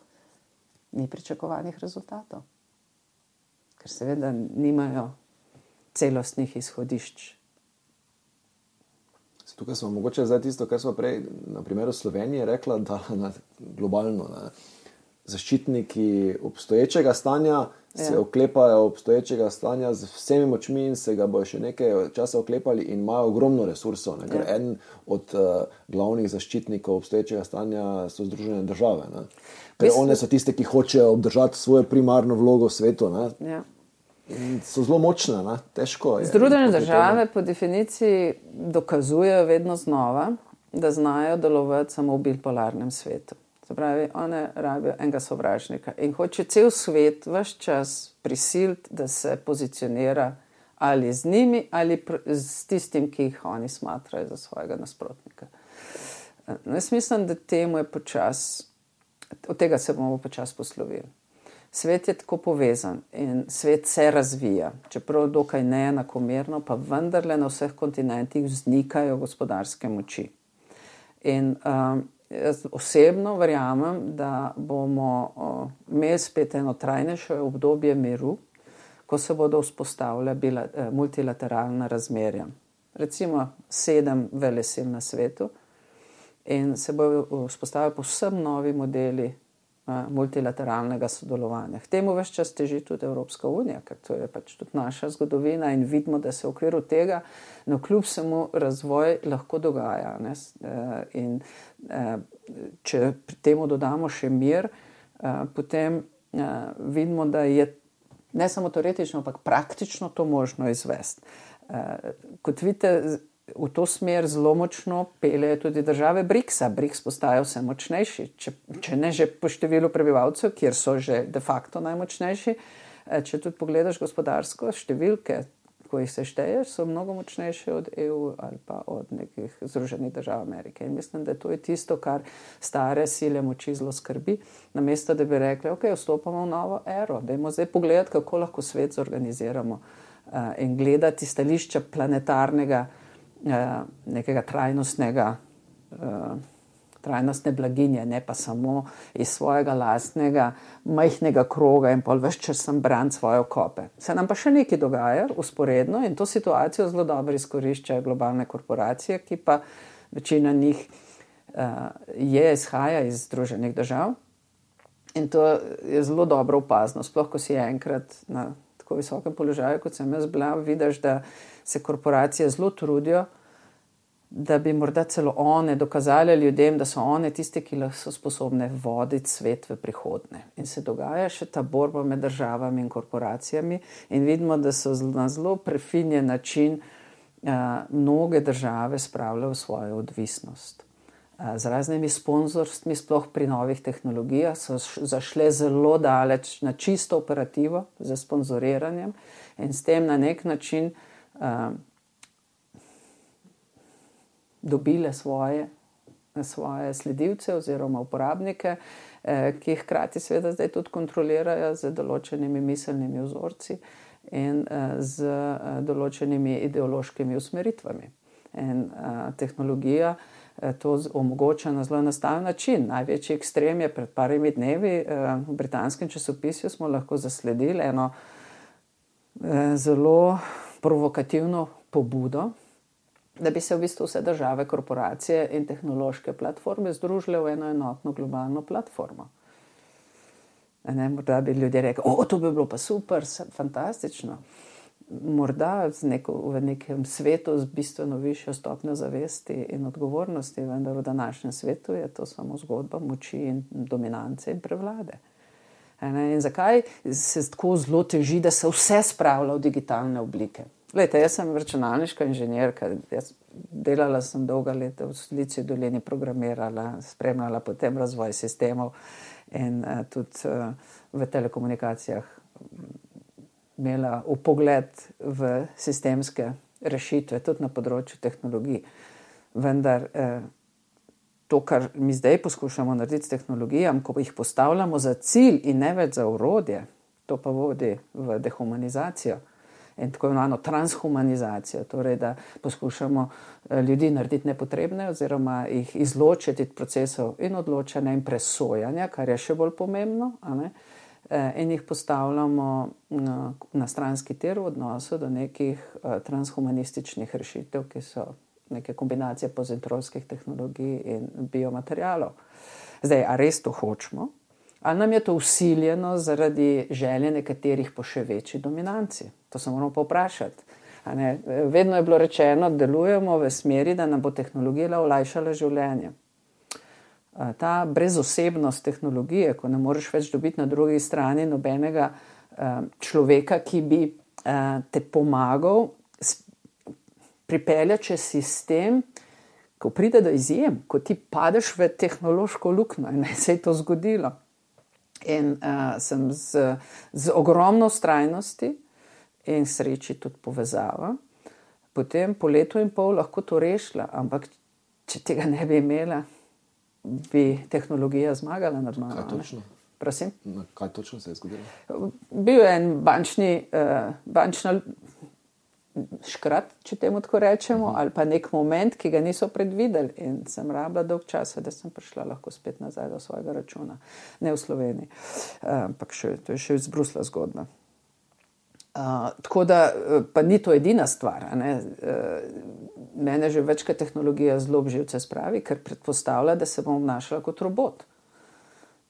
ni pričakovanih rezultatov. Ker seveda nimajo celostnih izhodišč. Tukaj smo mogoče zdaj tisto, kar smo prej na primeru Slovenije rekla, da globalno zaščitniki obstoječega stanja se oklepajo obstoječega stanja z vsemi močmi in se ga bojo še nekaj časa oklepali in imajo ogromno resursov. Ker en od glavnih zaščitnikov obstoječega stanja so Združene države. One so tiste, ki hočejo obdržati svojo primarno vlogo v svetu. Ja. In so zelo močne, težko je. Združene države po definiciji dokazujejo vedno znova, da znajo delovati samo v bipolarnem svetu. Se pravi, one rabijo enega sovražnika in hoče cel svet ves čas prisiliti, da se pozicionira ali z njimi ali s tistim, ki jih oni smatrajo za svojega nasprotnika. Jaz mislim, da temu je od tega se bomo počasi poslovili. Svet je tako povezan in svet se razvija, čeprav dokaj neenakomerno, pa vendarle na vseh kontinentih vznikajo gospodarske moči. In jaz osebno verjamem, da bomo imeli spet eno trajnejše obdobje miru, ko se bodo vzpostavljala multilateralna razmerja. Recimo 7 velesil na svetu in se bodo vzpostavili povsem novi modeli multilateralnega sodelovanja. K temu ves čas teži tudi Evropska unija, ker to je pač tudi naša zgodovina in vidimo, da se v okviru tega kljub vsemu razvoj lahko dogaja. Ne? In če pri temu dodamo še mir, potem vidimo, da je ne samo teoretično, ampak praktično to možno izvesti. Kot vidite, v to smer zelo močno peljejo tudi države BRICS-a. BRICS postajajo vse močnejši, če ne že po številu prebivalcev, kjer so že de facto najmočnejši. Če tudi pogledaš gospodarsko, številke, ko jih se šteješ, so mnogo močnejše od EU ali pa od nekih Združenih držav Amerike. In mislim, da to je tisto, kar stare sile moči zelo skrbi. Namesto, da bi rekli, ok, vstopamo v novo ero, dajmo zdaj pogledati, kako lahko svet zorganiziramo in gledati stališča planetarnega nekega trajnostne blaginje, ne pa samo iz svojega lastnega majhnega kroga in pol ves čas sem braniti svoje okope. Se nam pa še nekaj dogaja usporedno in to situacijo zelo dobro izkoriščajo globalne korporacije, ki pa večina njih izhaja iz Združenih držav in to je zelo dobro opazno, sploh ko si enkrat na tako visokem položaju, kot sem jaz bila, vidiš, da se korporacije zelo trudijo, da bi morda celo one dokazali ljudem, da so one tiste, ki so sposobne voditi svet v prihodnje. In se dogaja še ta borba med državami in korporacijami in vidimo, da so na zelo prefinjen način mnoge države spravljajo v svojo odvisnost. Z raznimi sponzorstvi, sploh pri novih tehnologijah, so zašle zelo daleč na čisto operativo za sponzoriranjem in s tem na nek način dobile svoje sledilce oziroma uporabnike, ki jih hkrati seveda zdaj tudi kontrolirajo z določenimi miselnimi vzorci in z določenimi ideološkimi usmeritvami. In tehnologija to omogoča na zelo enostaven način. Največji ekstrem je pred parimi dnevi v britanskem časopisju smo lahko zasledili eno zelo provokativno pobudo, da bi se v bistvu vse države, korporacije in tehnološke platforme združile v eno enotno globalno platformo. Morda bi ljudje rekli, to bi bilo pa super, fantastično. Morda v nekem svetu z bistveno višjo stopnjo zavesti in odgovornosti, vendar v današnjem svetu je to samo zgodba moči in dominance in prevlade. In zakaj se tako zelo teži, da se vse spravlja v digitalne oblike? Glejte, jaz sem računalniška inženirka, delala sem dolga leta v Silici dolini, programirala, spremljala potem razvoj sistemov in tudi v telekomunikacijah imela vpogled v sistemske rešitve, tudi na področju tehnologij. Vendar to, kar mi zdaj poskušamo narediti s tehnologijami, ko jih postavljamo za cilj in ne več za orodje, to pa vodi v dehumanizacijo in tako imenovano transhumanizacijo, torej da poskušamo ljudi narediti nepotrebne oziroma jih izločiti iz procesov in odločanja in presojanja, kar je še bolj pomembno, in jih postavljamo na stranski tir v odnosu do nekih transhumanističnih rešitev, ki so neke kombinacije pozitronskih tehnologij in biomaterialov. Zdaj, a res to hočemo? Ali nam je to vsiljeno zaradi želje nekaterih po še večji dominanci? To se moramo pa vprašati. Vedno je bilo rečeno, da delujemo v smeri, da nam bo tehnologija olajšala življenje. Ta brezosebnost tehnologije, ko ne moreš več dobiti na drugi strani nobenega človeka, ki bi te pomagal pripeljati čez sistem, ko pride do izjem, ko ti padeš v tehnološko luknjo in se je to zgodilo. In sem z ogromno vztrajnosti in sreči tudi povezava, potem po letu in pol lahko to rešila, ampak če tega ne bi imela, bi tehnologija zmagala nad mano. Kaj točno? Prosim? Kaj točno se je zgodilo? Bil je en škrat, če temu tako rečemo, ali pa nek moment, ki ga niso predvideli. In sem rabila dolg časa, da sem prišla lahko spet nazaj do svojega računa. Ne v Sloveniji, ampak to je še iz Brusla zgodba. Tako da, pa ni to edina stvar. Mene že večkrat tehnologija zelo živce spravi, ker predpostavlja, da se bom obnašala kot robot.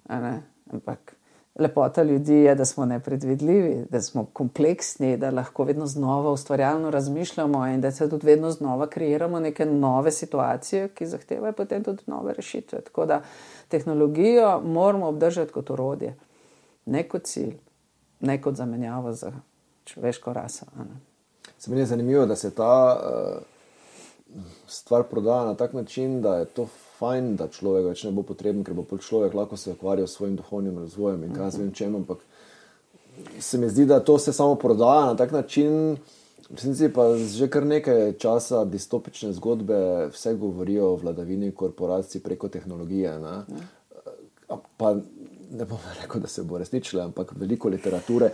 Ampak lepota ljudi je, da smo nepredvidljivi, da smo kompleksni, da lahko vedno znova ustvarjalno razmišljamo in da se tudi vedno znova kreiramo neke nove situacije, ki zahtevajo potem tudi nove rešitve. Tako da tehnologijo moramo obdržati kot orodje, ne kot cilj, ne kot zamenjavo za človeško raso. Se meni je zanimivo, da se ta stvar prodaja na tak način, da je to fajn, da človek več ne bo potreben, ker bo človek lahko se ukvarjal s svojim duhovnim razvojem in kaj vem čem, ampak se mi zdi, da to se samo prodaja na tak način, v resnici pa že kar nekaj časa distopične zgodbe vse govorijo o vladavini korporacij preko tehnologije. Pa ne bom rekel, da se bo resničilo, ampak veliko literature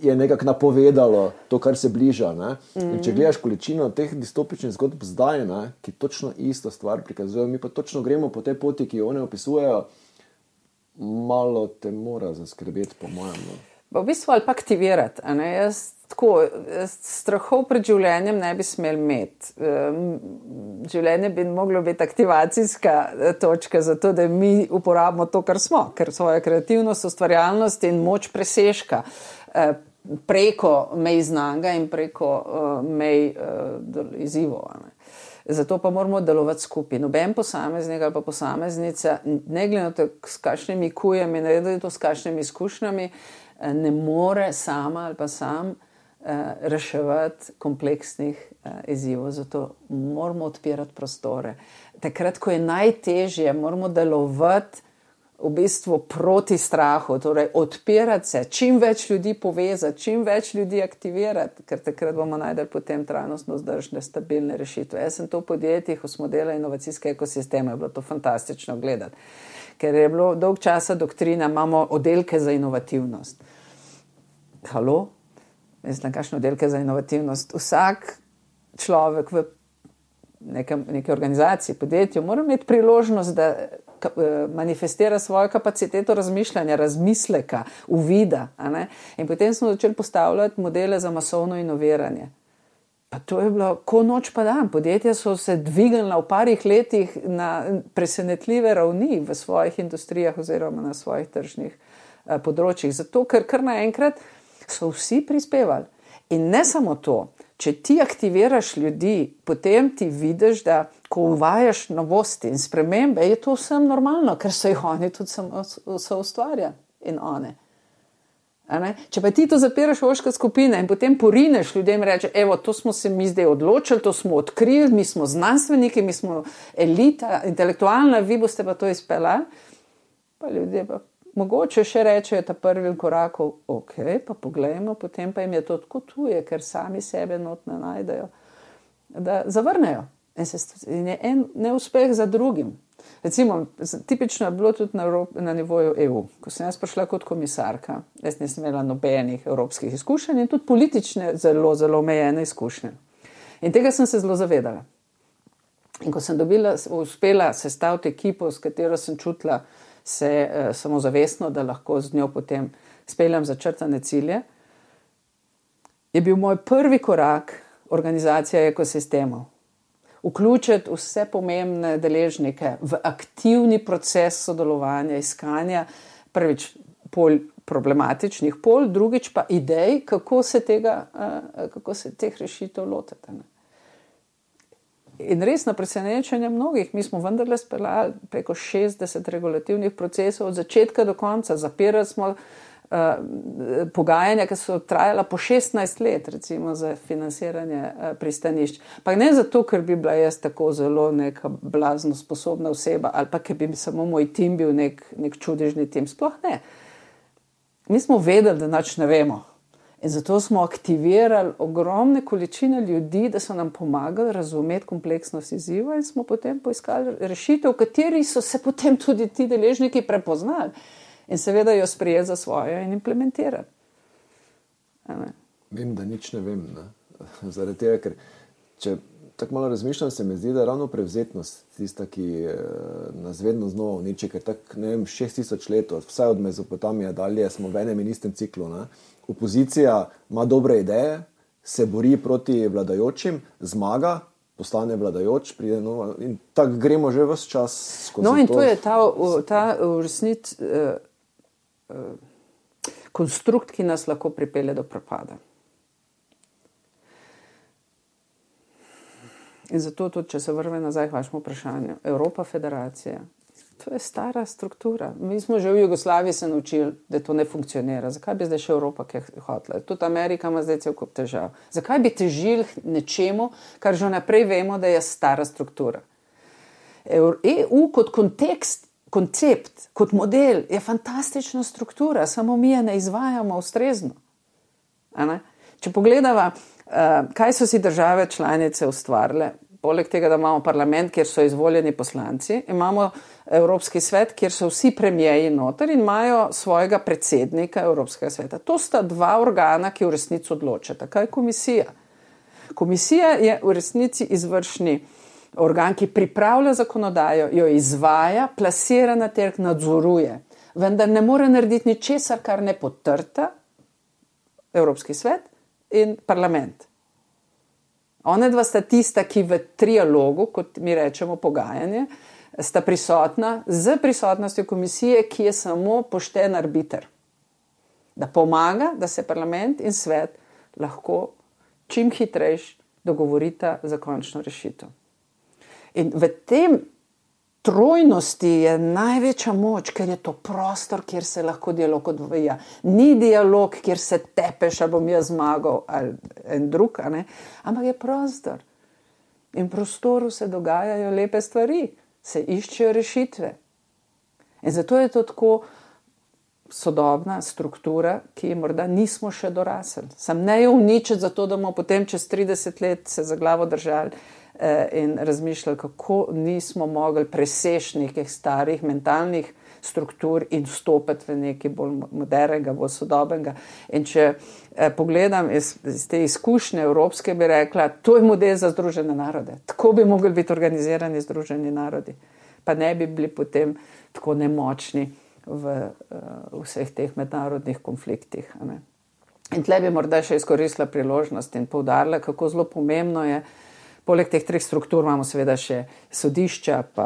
je nekako napovedalo to, kar se bliža. In če gledaš količino teh distopičnih zgodb zdaj, ki točno isto stvar prikazujejo, mi pa točno gremo po tej poti, ki jo one opisujejo, malo te mora zaskrbeti, po mojem. V bistvu ali pa aktivirati. Jaz strahov pred življenjem ne bi smel imeti. Življenje bi moglo biti aktivacijska točka za to, da mi uporabimo to, kar smo, ker svojo kreativnost, ustvarjalnost in moč presežka preko mej znanga in preko mej izzivov. Zato pa moramo delovati skupaj. Noben posameznik ali pa posameznica, ne glede na to, s kakšnimi kujami, ne glede na to, s kakšnimi izkušnjami, ne more sama ali pa sam reševati kompleksnih izzivov. Zato moramo odpirati prostore. Takrat, ko je najtežje, moramo delovati v bistvu proti strahu, torej odpirati se, čim več ljudi povezati, čim več ljudi aktivirati, ker takrat bomo najdeli potem trajnostno vzdržne, stabilne rešitve. Jaz sem to v podjetjih, ko smo delali inovacijske ekosisteme, je bilo to fantastično gledati, ker je bilo dolg časa doktrina, imamo oddelke za inovativnost. Halo? Mislim, kakšne oddelke za inovativnost? Vsak človek v neke organizaciji, podjetju, mora imeti priložnost, da manifestira svojo kapaciteto razmišljanja, razmisleka, uvida. In potem smo začeli postavljati modele za masovno inoviranje. Pa to je bilo ko noč pa dan. Podjetja so se dvignila v parih letih na presenetljive ravni v svojih industrijah oziroma na svojih tržnih področjih. Zato, ker kar naenkrat so vsi prispevali. In ne samo to, če ti aktiviraš ljudi, potem ti vidiš, da ko uvajaš novosti in spremembe, je to vsem normalno, ker so jih oni tudi so ustvarjali in one. Če pa ti to zapiraš v ožke skupine in potem porineš ljudem in reče, evo, to smo se mi zdaj odločili, to smo odkrili, mi smo znanstveniki, mi smo elita, intelektualna, vi boste pa to izpeljali, pa ljudje pa mogoče še rečejo ta prvi korakov, ok, pa poglejmo, potem pa jim je to tako tuje, ker sami sebe not ne najdejo, da zavrnejo. In je en neuspeh za drugim. Recimo, tipično je bilo tudi na nivoju EU. Ko sem jaz prišla kot komisarka, jaz nisem imela nobenih evropskih izkušenj in tudi politične zelo, zelo omejene izkušnje. In tega sem se zelo zavedala. In ko sem uspela sestaviti ekipo, s katero sem čutila se samozavestno, da lahko z njo potem speljem začrtane cilje, je bil moj prvi korak organizacija ekosistemov. Vključiti vse pomembne deležnike v aktivni proces sodelovanja, iskanja, prvič problematičnih pol, drugič pa idej, kako se teh rešitev lotiti. In res na presenečenje mnogih, mi smo vendarle speljali preko 60 regulativnih procesov od začetka do konca, zapirali smo pogajanja, ki so trajala po 16 let, recimo za financiranje pristanišč. Pa ne zato, ker bi bila jaz tako zelo neka blazno sposobna oseba ali pa ker bi samo moj tim bil nek čudežni tim. Sploh ne. Mi smo vedeli, da nič ne vemo. In zato smo aktivirali ogromne količine ljudi, da so nam pomagali razumeti kompleksnost izziva in smo potem poiskali rešitev, v kateri so se potem tudi ti deležniki prepoznali in seveda jo sprejeli za svojo in implementirali. Vem, da nič ne vem. Zaradi tega, ker če tako malo razmišljam, se mi zdi, da je ravno prevzetnost tista, ki nas vedno znova uniči, ker tako, ne vem, 6000 let, vsaj od Mezopotamije dalje, smo v enem in istem ciklu. Ne? Opozicija ima dobre ideje, se bori proti vladajočim, zmaga, postane vladajoč, pride nova in tako gremo že ves čas skozi to. No in to je ta v resnici konstrukt, ki nas lahko pripelje do propada. In zato tudi, če se vrve nazaj k vašemu vprašanju, Evropa federacija, to je stara struktura. Mi smo že v Jugoslaviji se naučili, da to ne funkcionira. Zakaj bi zdaj še Evropa kaj hotela? Tudi Amerika ima zdaj cel kup težav. Zakaj bi težili nečemu, kar že naprej vemo, da je stara struktura? EU kot koncept, kot model je fantastična struktura, samo mi je ne izvajamo ustrezno. Če pogledava, kaj so si države članice ustvarile, poleg tega, da imamo parlament, kjer so izvoljeni poslanci, imamo Evropski svet, kjer so vsi premijeji noter in imajo svojega predsednika Evropskega sveta. To sta dva organa, ki v resnici odločata. Kaj je komisija? Komisija je v resnici izvršni organ, ki pripravlja zakonodajo, jo izvaja, plasira na trg, nadzoruje. Vendar ne more narediti ničesar, kar ne potrta Evropski svet in parlament. One dva sta tista, ki v trialogu, kot mi rečemo pogajanje, sta prisotna z prisotnostjo komisije, ki je samo pošten arbiter. Da pomaga, da se parlament in svet lahko čim hitrejš dogovorita za končno rešitev. In v tem trojnosti je največja moč, ker je to prostor, kjer se lahko dialog odvija. Ni dialog, kjer se tepeš, ali bom jaz zmagal ali en drug, ampak je prostor. In v prostoru se dogajajo lepe stvari, se iščejo rešitve. In zato je to tako sodobna struktura, ki morda nismo še dorasli. Sam ne jo uničiti, zato da bomo potem čez 30 let se za glavo držali in razmišljali, kako nismo mogli preseči nekih starih mentalnih struktur in vstopiti v nekaj bolj modernega, bolj sodobnega. In če pogledam iz te izkušnje evropske, bi rekla, to je model za Združene narode. Tako bi mogli biti organizirani Združeni narodi. Pa ne bi bili potem tako nemočni v vseh teh mednarodnih konfliktih. In tle bi morda še izkoristila priložnost in poudarila, kako zelo pomembno je. Poleg teh treh struktur imamo seveda še sodišča, pa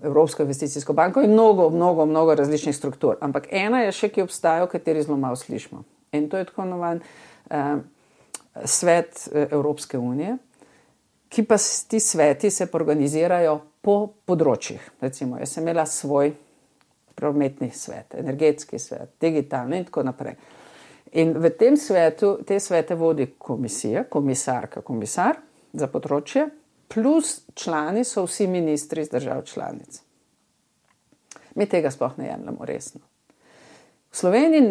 Evropsko investicijsko banko in mnogo različnih struktur. Ampak ena je še, ki obstaja, o kateri zelo malo slišimo. In to je tako imenovan svet Evropske unije, ki pa ti sveti se organizirajo po področjih. Recimo, jaz sem imela svoj prometni svet, energetski svet, digitalni in tako naprej. In v tem svetu, te svete vodi komisija, komisar za področje, plus člani so vsi ministri iz držav članic. Mi tega sploh ne jemljemo resno. V Sloveniji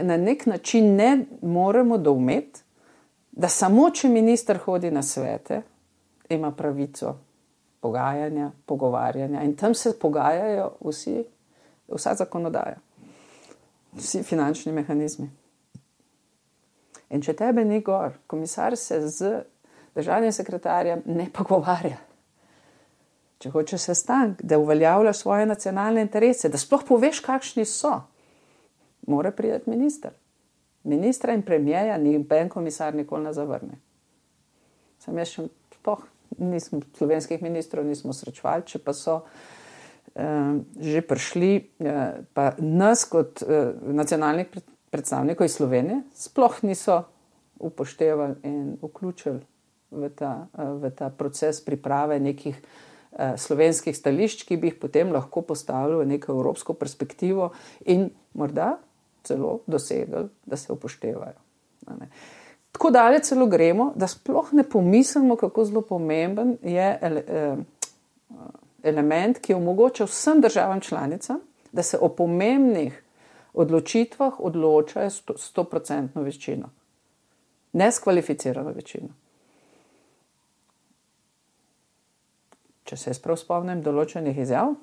na nek način ne moremo doumeti, da samo če minister hodi na svete, ima pravico pogajanja, pogovarjanja in tam se pogajajo vsa zakonodaja, vsi finančni mehanizmi. In če tebe ni gor, komisar se z državnim sekretarjem ne pogovarja. Če hoče sestanek, da uveljavljaš svoje nacionalne interese, da sploh poveš, kakšni so, mora priti minister. Ministra in premijeja noben komisar nikoli ne zavrne. Sam jaz še sploh slovenskih ministrov nismo srečevali, če pa so že prišli, pa nas kot nacionalnih predstavnikov iz Slovenije sploh niso upoštevali in vključili v ta proces priprave nekih slovenskih stališč, ki bi jih potem lahko postavili v neko evropsko perspektivo in morda celo dosegli, da se upoštevajo. Tako daleč celo gremo, da sploh ne pomislimo, kako zelo pomemben je element, ki omogoča vsem državam članicam, da se o pomembnih odločitvah odločajo 100% večino. Neskvalificirano večino. Če se jaz prav spomnim določenih izjav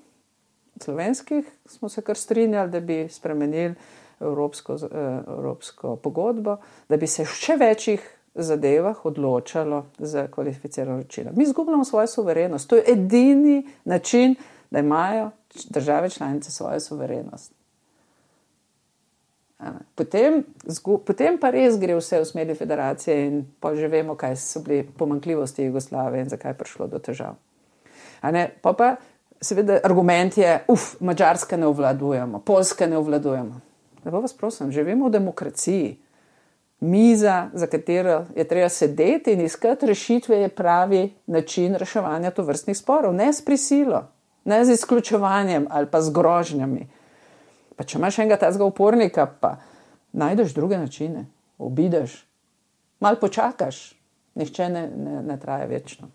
slovenskih, smo se kar strinjali, da bi spremenili evropsko pogodbo, da bi se v še večjih zadevah odločalo za kvalificirano večino. Mi izgubljamo svojo suverenost. To je edini način, da imajo države članice svojo suverenost. Potem pa res gre vse v smeri federacije in pa že vemo, kaj so bili pomanjkljivosti Jugoslavije in zakaj je prišlo do težav. Pa seveda argument je, Madžarske ne obvladujemo, Poljske ne obvladujemo. Lepo vas prosim, živimo v demokraciji. Miza, za katero je treba sedeti in iskati rešitve, je pravi način reševanja tovrstnih sporov. Ne s prisilo, ne z izključevanjem ali pa z grožnjami. Pa če imaš enega tazga upornika, pa najdeš druge načine, obideš, malo počakaš, nihče ne traja večno.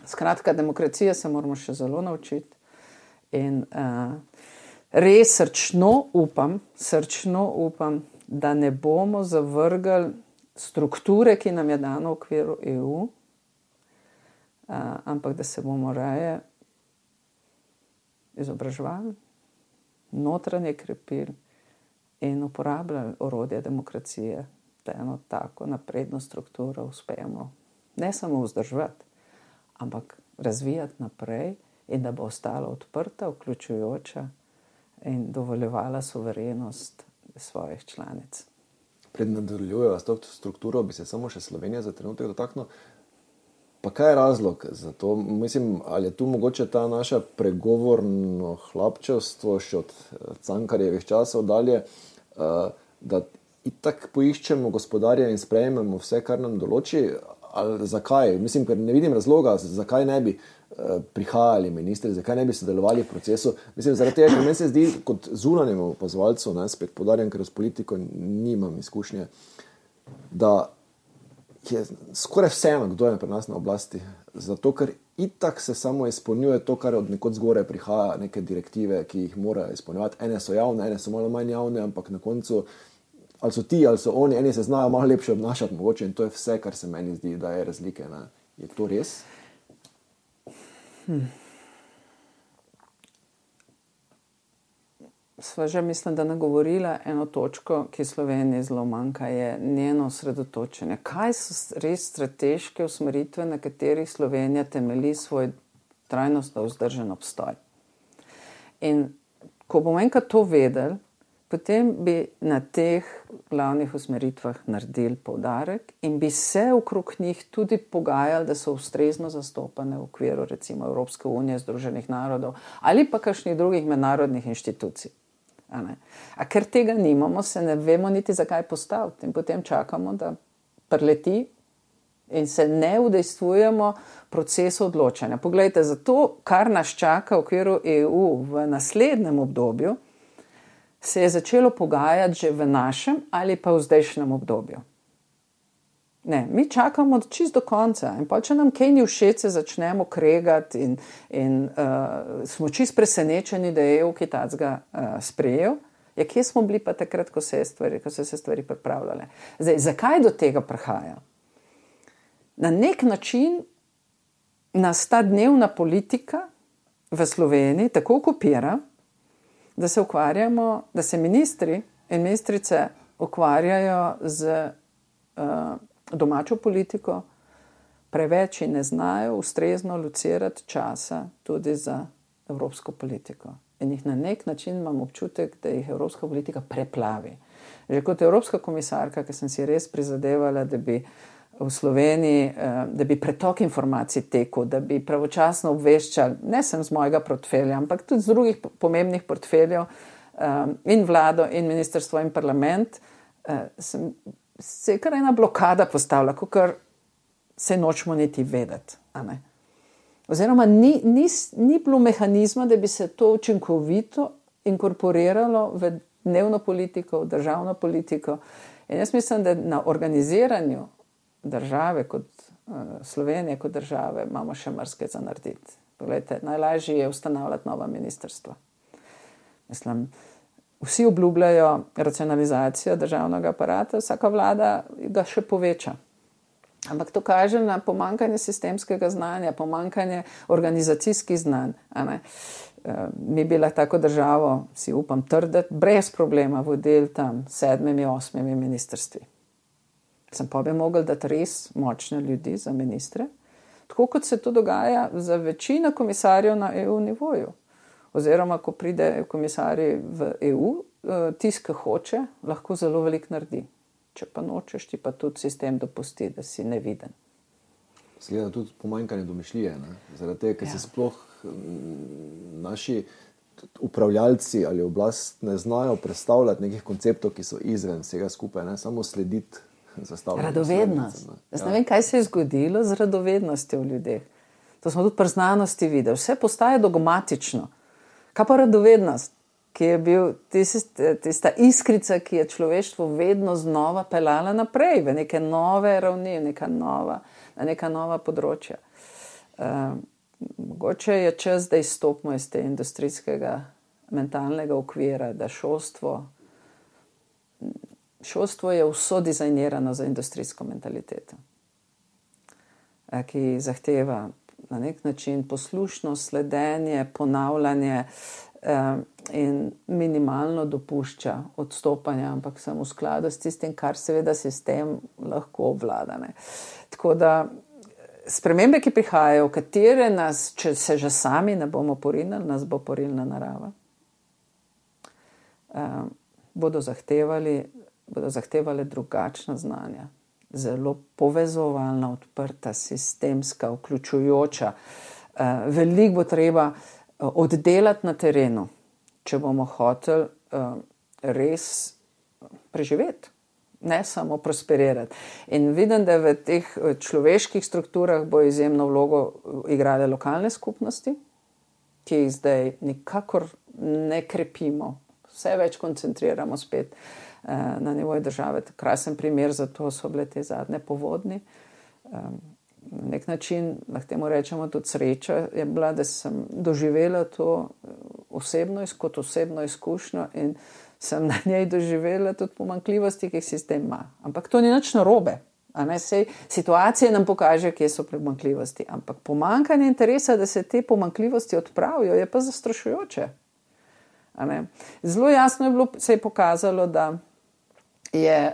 Skratka, demokracija se moramo še zelo naučiti in res srčno upam, da ne bomo zavrgli strukture, ki nam je dano v okviru EU, ampak da se bomo raje izobraževali, notranje krepili in uporabljali orodje demokracije, da eno tako napredno strukturo uspemo ne samo vzdrževati, ampak razvijati naprej in da bo ostala odprta, vključujoča in dovoljevala suverenost svojih članic. Pred nadaljujejo s to strukturo, bi se samo še Slovenija za trenutek dotaknil. Pa kaj je razlog za to? Mislim, ali je tu mogoče ta naša pregovorno hlapčevstvo še od Cankarjevih časov dalje, da itak poiščemo gospodarja in sprejmemo vse, kar nam določi? Ali zakaj? Mislim, ker ne vidim razloga, zakaj ne bi prihajali ministri, zakaj ne bi sodelovali v procesu. Mislim, zaradi tega, ker meni se zdi kot zunanjemu opazovalcu, spet poudarjam, ker s politiko nimam izkušnje, da je skoraj vseeno, kdo je pri nas na oblasti. Zato, ker itak se samo izpolnjuje to, kar od nekod zgore prihaja, neke direktive, ki jih morajo izpolnjevati. Ene so javne, ene so malo manj javne, ampak na koncu ali so ti, ali so oni, eni se znajo malo lepše obnašati mogoče in to je vse, kar se meni zdi, da je razlike. Ne? Je to res? Sva že mislim, da nagovorila eno točko, ki Sloveniji zelo manjka, je njeno osredotočenje. Kaj so res strateške usmeritve, na katerih Slovenija temelji svoj trajnostno vzdržen obstoj? In ko bomo enkrat to vedeli, potem bi na teh glavnih usmeritvah naredili poudarek in bi se okrog njih tudi pogajali, da so ustrezno zastopane v okviru recimo Evropske unije, Združenih narodov ali pa kakšnih drugih mednarodnih inštitucij. A ker tega nimamo, se ne vemo niti zakaj postaviti in potem čakamo, da preleti in se ne udejstvujemo procesu odločanja. Poglejte, za to, kar nas čaka v okviru EU v naslednjem obdobju, se je začelo pogajati že v našem ali pa v zdajšnjem obdobju. Ne, mi čakamo čisto do konca in pa če nam kaj ni všeč, se začnemo kregati in smo čisto presenečeni, da je EU kaj takega sprejel. Ja, kje smo bili pa takrat, ko so se stvari pripravljale? Zdaj, zakaj do tega prihaja? Na nek način nas ta dnevna politika v Sloveniji tako okupira, da se ukvarjamo, da se ministri in ministrice ukvarjajo z domačo politiko, preveč in ne znajo ustrezno locirati časa tudi za evropsko politiko. In jih na nek način imam občutek, da jih evropska politika preplavi. Že kot evropska komisarka, ki sem si res prizadevala, da bi v Sloveniji, da bi pretok informacij tekel, da bi pravočasno obveščali, ne sem z mojega portfelja, ampak tudi z drugih pomembnih portfeljev in vlado in ministrstvo in parlament, se je kar ena blokada postavila, kakor se nočemo niti vedeti. Oziroma ni bilo mehanizma, da bi se to učinkovito inkorporiralo v dnevno politiko, v državno politiko. In jaz mislim, da na organiziranju države kot Slovenije kot države imamo še marsikaj za narediti. Poglejte, najlažje je ustanavljati nova ministrstva. Mislim, vsi obljubljajo racionalizacijo državnega aparata, vsaka vlada ga še poveča. Ampak to kaže na pomanjkanje sistemskega znanja, pomanjkanje organizacijskih znanj. Mi bi lahko tako državo, si upam trditi, brez problema vodili tam 7, 8 ministrstvi. Sem pa bi mogli dati res močne ljudi za ministre, tako kot se to dogaja za večino komisarjev na EU nivoju. Oziroma, ko pride komisarji v EU, tisti, ki hoče, lahko zelo veliko naredi. Če pa nočeš, ti pa tudi sistem dopusti, da si neviden. Zgleda tudi pomanjkanje domišljije, zaradi tega, ker se sploh naši upravljalci ali oblast ne znajo predstavljati nekih konceptov, ki so izven vsega skupaj, samo slediti zastavljanju. Radovednost. Jaz ne vem, kaj se je zgodilo z radovednostjo v ljudeh. To smo tudi pri znanosti videli. Vse postaje dogmatično. Kaj pa radovednost, ki je bil tista iskrica, ki je človeštvo vedno znova pelala naprej v neke nove ravni, na neka nova področja. Mogoče je čas, da izstopimo iz te industrijskega mentalnega okvira, da šolstvo je vso dizajnirano za industrijsko mentaliteto, ki zahteva na nek način poslušnost, sledenje, ponavljanje in minimalno dopušča odstopanja, ampak samo v skladu s tistim, kar seveda sistem lahko obvlada. Tako da spremembe, ki prihajajo, v katere nas, če se že sami ne bomo porinili, nas bo porilna narava, bodo zahtevali drugačna znanja. Zelo povezovalna, odprta, sistemska, vključujoča. Veliko bo treba oddelati na terenu, če bomo hoteli res preživeti, ne samo prosperirati. In vidim, da v teh človeških strukturah bo izjemno vlogo igrale lokalne skupnosti, ki jih zdaj nikakor ne krepimo, vse več koncentriramo spet na nivoju države. Krasen primer za to so bile te zadnje povodni. Na nek način, lahko temu rečemo, tudi sreča je bila, da sem doživela to kot osebno izkušnjo in sem na njej doživela tudi pomanjkljivosti, ki jih sistem ima. Ampak to ni nič narobe. Sej situacije nam pokaže, kje so pomanjkljivosti. Ampak pomanjkanje interesa, da se te pomanjkljivosti odpravijo, je pa zastrašujoče. Zelo jasno se je pokazalo, da je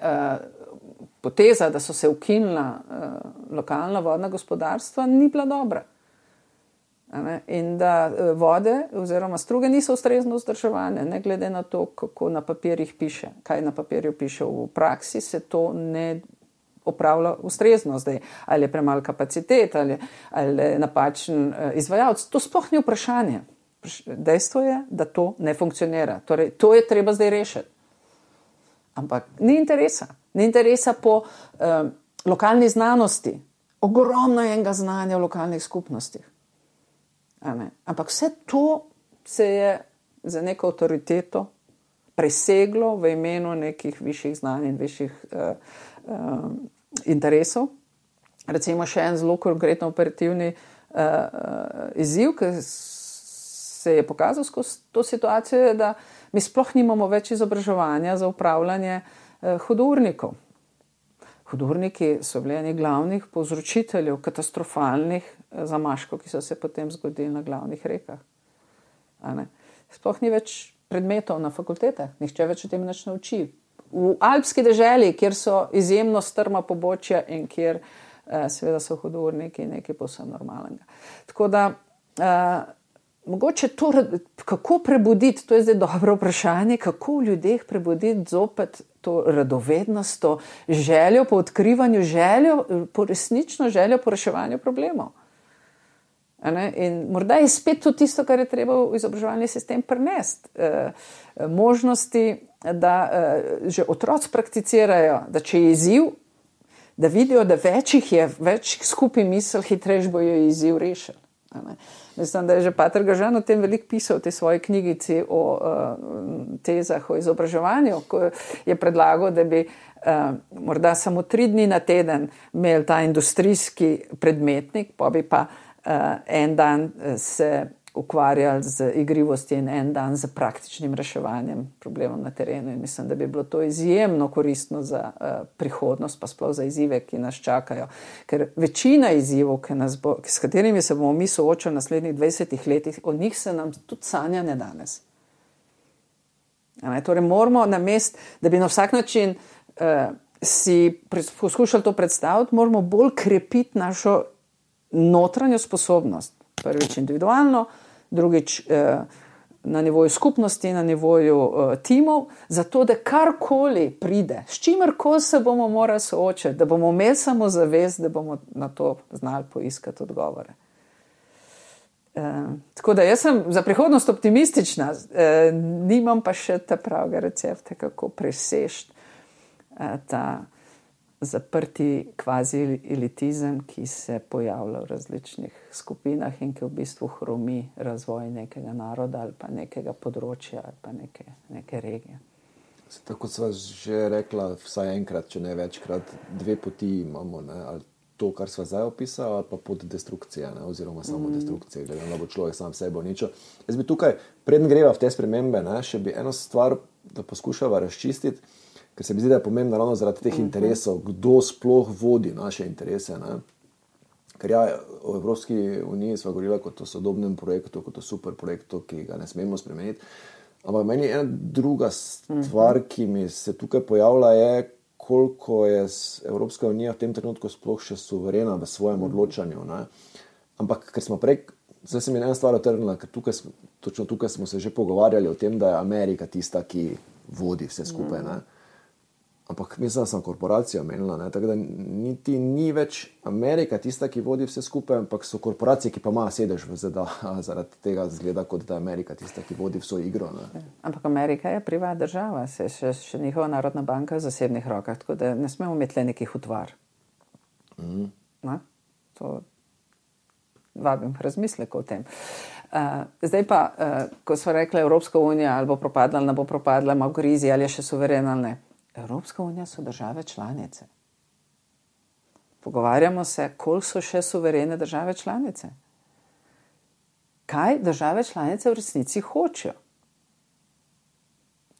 poteza, da so se ukinila lokalna vodna gospodarstva, ni bila dobra. In da vode oziroma struge niso ustrezno vzdrževane, ne glede na to, kako na papirjih piše. Kaj na papirju piše, v praksi se to ne opravlja ustrezno zdaj. Ali je premalo kapacitet, ali je napačen izvajalec. To sploh ni vprašanje. Dejstvo je, da to ne funkcionira. Torej, to je treba zdaj rešiti. Ampak ni interesa. Ni interesa po lokalni znanosti. Ogromno je enega znanja v lokalnih skupnostih. Ampak vse to se je za neko avtoriteto preseglo v imenu nekih višjih znanj in višjih interesov. Recimo še en zelo konkretno operativni izziv, ki se je pokazal skozi to situacijo, je, da mi sploh nimamo več izobraževanja za upravljanje hudournikov. Hudurniki so bili eni glavnih povzročiteljev katastrofalnih zamaškov, ki so se potem zgodili na glavnih rekah. Sploh ni več predmetov na fakultetah, nihče več o tem nič ne uči. V alpski deželi, kjer so izjemno strma pobočja in kjer seveda so hudurniki nekaj povsem normalnega. Tako da mogoče to, kako prebuditi, to je zdaj dobro vprašanje, kako v ljudeh prebuditi zopet to radovednost, to željo po odkrivanju, resnično željo po reševanju problemov. In morda je spet to tisto, kar je treba v izobraževalni sistem prinesti. Možnosti, da že otroci prakticirajo, da če je izziv, da vidijo, da več skupaj misel, hitreje bojo izziv rešili. Mislim, da je že Pater Gažan o tem veliko pisal v tej svoji knjigici o tezah o izobraževanju, ko je predlagal, da bi morda samo 3 dni na teden imeli ta industrijski predmetnik, pa bi pa en dan se ukvarjali z igrivosti in en dan z praktičnim reševanjem problemov na terenu. In mislim, da bi bilo to izjemno koristno za prihodnost, pa sploh za izzive, ki nas čakajo. Ker večina izzivov, s katerimi se bomo mi soočali v naslednjih 20 letih, od njih se nam tudi sanja ne danes. Torej moramo namesto, da bi na vsak način si poskušali to predstaviti, moramo bolj krepiti našo notranjo sposobnost. Prvič individualno, drugič na nivoju skupnosti, na nivoju timov, zato da karkoli pride, s čimerkoli se bomo morali soočati, da bomo imeli samo zavest, da bomo na to znali poiskati odgovore. Tako da jaz sem za prihodnost optimistična, nimam pa še ta pravega recepta, kako preseči ta zaprti kvazi elitizem, ki se pojavlja v različnih skupinah in ki v bistvu hromi razvoj nekega naroda ali pa nekega področja ali pa neke regije. Tako sva že rekla, vsaj enkrat, če ne večkrat, dve poti imamo, ne? Ali to, kar sva zdaj opisala, ali pa pot destrukcije, ne? Oziroma samo destrukcije, glede na bo človek sam sebe uničil. Jaz bi tukaj, preden greva v te spremembe, ne, še bi eno stvar, da poskušava razčistiti, ker se mi zdi, da je pomembno ravno zaradi teh interesov, kdo sploh vodi naše interese. Ne? Ker ja, v Evropski uniji sva govorila kot o sodobnem projektu, kot o super projektu, ki ga ne smemo spremeniti. Ampak meni ena druga stvar, ki mi se tukaj pojavlja, je, koliko je Evropska unija v tem trenutku sploh še suverena v svojem odločanju. Ne? Ampak ker smo prej, zdaj se mi ena stvar otrnila, ker točno tukaj smo se že pogovarjali o tem, da je Amerika tista, ki vodi vse skupaj. Ne? Ampak mislim, da sem korporacijo omenila, ne? Tako da niti ni več Amerika tista, ki vodi vse skupaj, ampak so korporacije, ki pa ima sedež v ZDA, zaradi tega zgleda, kot da je Amerika tista, ki vodi vso igro. Ne? Ampak Amerika je privatna država, se še njihova narodna banka v zasebnih rokah, tako da ne smemo imeti le nekih utvar. To vabim razmislek o tem. Zdaj pa, ko smo rekli Evropska unija ali bo propadla, ali ne bo propadla, ima v krizi, ali je še suverena ali ne. Evropska unija so države članice. Pogovarjamo se, koliko so še suverene države članice. Kaj države članice v resnici hočejo?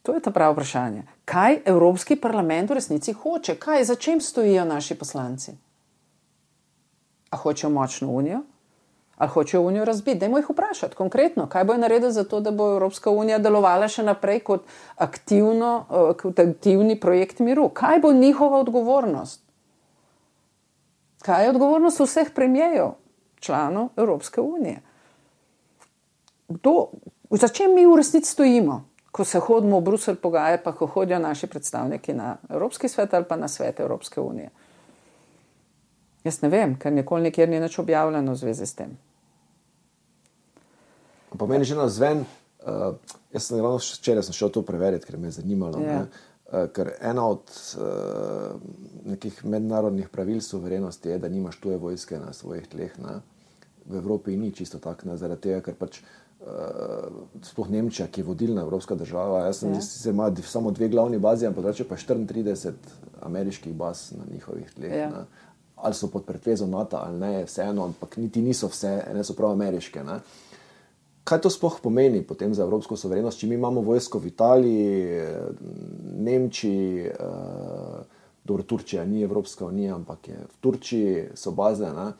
To je ta pravo vprašanje. Kaj Evropski parlament v resnici hoče? Za čem stojijo naši poslanci? A hočejo močno unijo? Ali hočejo unijo razbiti? Dajmo jih vprašati konkretno, kaj bojo naredili za to, da bo Evropska unija delovala še naprej kot aktivni projekt miru. Kaj bo njihova odgovornost? Kaj je odgovornost vseh premijerjev, članov Evropske unije? Za čem mi v resnici stojimo, ko se hodimo v Bruselj pogajati, pa ko hodijo naši predstavniki na Evropski svet ali pa na svet Evropske unije? Jaz ne vem, ker nikoli nikjer ni nič objavljeno v zvezi s tem. Pa meni že navzven, jaz sem ravno včeraj šel to preveriti, ker me je zanimalo. Yeah. Ker ena od nekih mednarodnih pravil suverenosti je, da nimaš tuje vojske na svojih tleh. Ne? V Evropi ni čisto tak, ne? Zaradi tega, ker pač sploh Nemčija, ki je vodilna evropska država, jaz sem ima samo 2 glavni bazi, ampak drugače pa 34 ameriških baz na njihovih tleh. Yeah. Ne? Ali so pod pretvezo NATO ali ne, vseeno, ampak niti niso vse, ene so prav ameriške. Ne? Kaj to sploh pomeni potem za evropsko suverenost, če mi imamo vojsko v Italiji, Nemčiji, dobro, Turčija ni Evropska unija, ampak je v Turčiji, so baze, ne?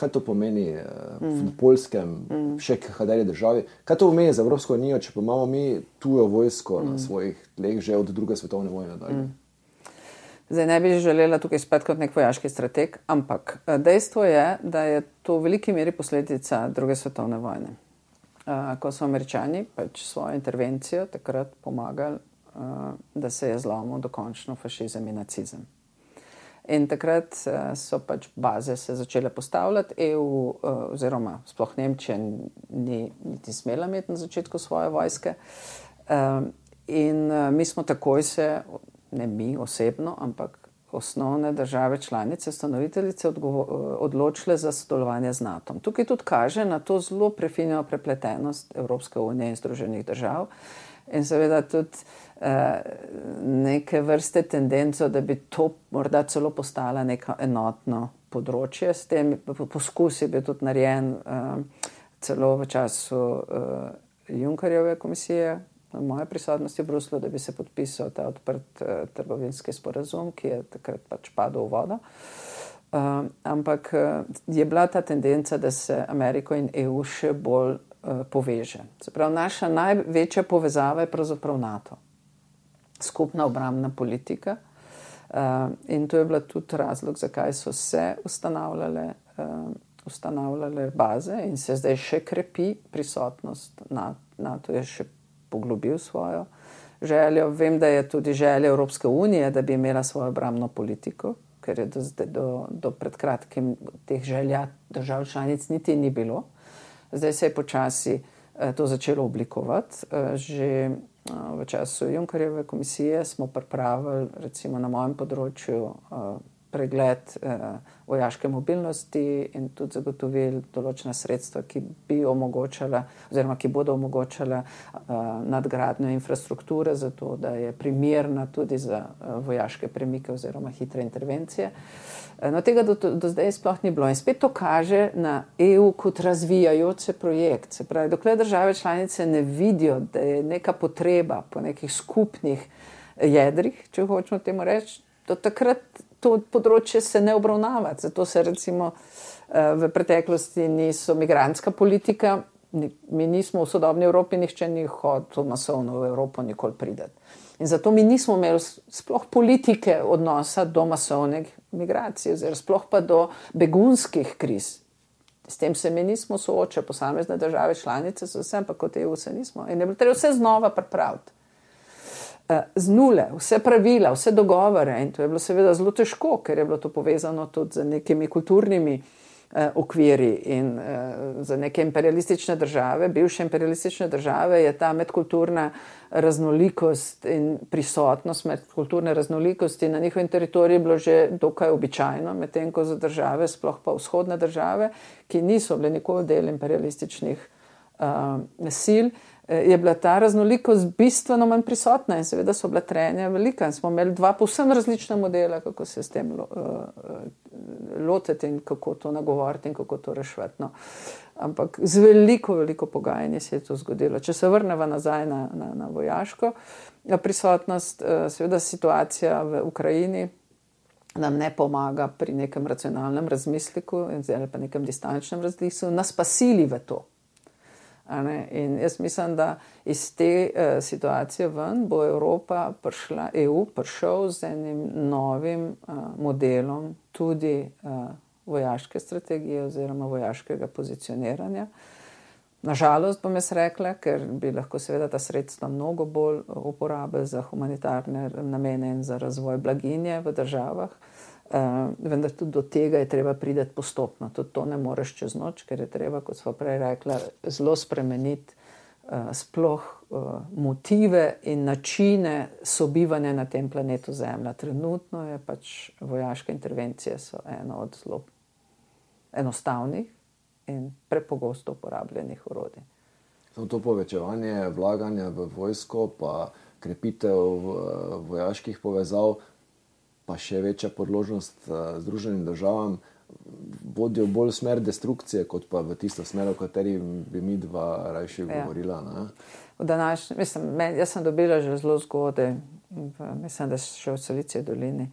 Kaj to pomeni v Poljskem, še kateri državi? Kaj to pomeni za Evropsko unijo, če pa imamo mi tujo vojsko na svojih tleh že od 2. svetovne vojne dalje? Zdaj ne bi želela tukaj spet kot nek vojaški strateg, ampak dejstvo je, da je to v veliki meri posledica 2. svetovne vojne. Ko so Američani pač svojo intervencijo takrat pomagali, da se je zlomil dokončno fašizem in nacizem. In takrat so pač baze se začele postavljati, EU oziroma sploh Nemčija ni niti smela imeti na začetku svoje vojske. In mi smo takoj se, ne mi osebno, ampak osnovne države članice, ustanoviteljice odločile za sodelovanje z NATO. Tukaj tudi kaže na to zelo prefinjeno prepletenost Evropske unije in Združenih držav in seveda tudi neke vrste tendenco, da bi to morda celo postala neko enotno področje. S tem poskus je bil tudi narejen celo v času Junckerjeve komisije, v moje prisotnosti v Bruslu, da bi se podpisal ta odprt trgovinski sporazum, ki je takrat pač padel v vodo. Ampak je bila ta tendenca, da se Ameriko in EU še bolj poveže. Se pravi, naša največja povezava je pravzaprav NATO. Skupna obrambna politika. In to je bila tudi razlog, zakaj so se ustanavljale baze in se zdaj še krepi prisotnost. NATO je še poglobil svojo željo. Vem, da je tudi želja Evropske unije, da bi imela svojo obrambno politiko, ker je do pred kratkim teh želja držav članic niti ni bilo. Zdaj se je počasi to začelo oblikovati. Že v času Junckerjeve komisije smo pripravili, recimo na mojem področju, pregled vojaške mobilnosti in tudi zagotovili določena sredstva, ki bi omogočala oziroma ki bodo omogočala nadgradnjo infrastrukture, zato da je primerna tudi za vojaške premike oziroma hitre intervencije. No, tega do zdaj sploh ni bilo. In spet to kaže na EU kot razvijajoč se projekt. Se pravi, dokler države članice ne vidijo, da je neka potreba po nekih skupnih jedrih, če hočemo temu reči, do takrat to področje se ne obravnava. Zato se recimo v preteklosti niso migrantska politika, mi nismo v sodobni Evropi, nihče ni hotel masovno v Evropo nikoli prideti. In zato mi nismo imeli sploh politike odnosa do masovnih migracij, oziroma sploh pa do begunskih kriz. S tem se mi nismo soočali, posamezne države članice so vse, ampak kot EU se nismo. In je bilo treba vse znova pripraviti. Z nule, vse pravila, vse dogovore, in to je bilo seveda zelo težko, ker je bilo to povezano tudi z nekimi kulturnimi okviri in za neke imperialistične države, bivše imperialistične države, je ta medkulturna raznolikost in prisotnost medkulturne raznolikosti na njihovem teritoriju bilo že dokaj običajno, medtem ko za države, sploh pa vzhodne države, ki niso bile nikoli del imperialističnih sil, je bila ta raznolikost bistveno manj prisotna in seveda so bila trenja velika. In smo imeli dva povsem različna modela, kako se s tem lotiti in kako to nagovoriti in kako to reševati. No. Ampak z veliko pogajanje se je to zgodilo. Če se vrnemo nazaj na vojaško prisotnost, seveda situacija v Ukrajini nam ne pomaga pri nekem racionalnem razmisliku ali pa nekem distančnem razmisliku, nas pa sili v to. In jaz mislim, da iz te situacije ven bo EU prišel z enim novim modelom tudi vojaške strategije oziroma vojaškega pozicioniranja. Nažalost bom jaz rekla, ker bi lahko seveda ta sredstva mnogo bolj uporabili za humanitarne namene in za razvoj blaginje v državah. Vendar tudi do tega je treba priti postopno. Tudi to ne moreš čez noč, ker je treba, kot smo prej rekla, zelo spremeniti sploh motive in načine sobivanja na tem planetu Zemlja. Trenutno je pač vojaške intervencije so eno od zelo enostavnih in prepogosto uporabljenih orodij. Samo to povečevanje vlaganja v vojsko, pa krepitev vojaških povezav, pa še večja podložnost Združenim državam, vodijo bolj v smer destrukcije, kot pa v tisto smer, o kateri bi mi dva rajši govorila. Ne? Jaz sem dobila že zelo zgodaj, mislim, da še v Silicijski dolini,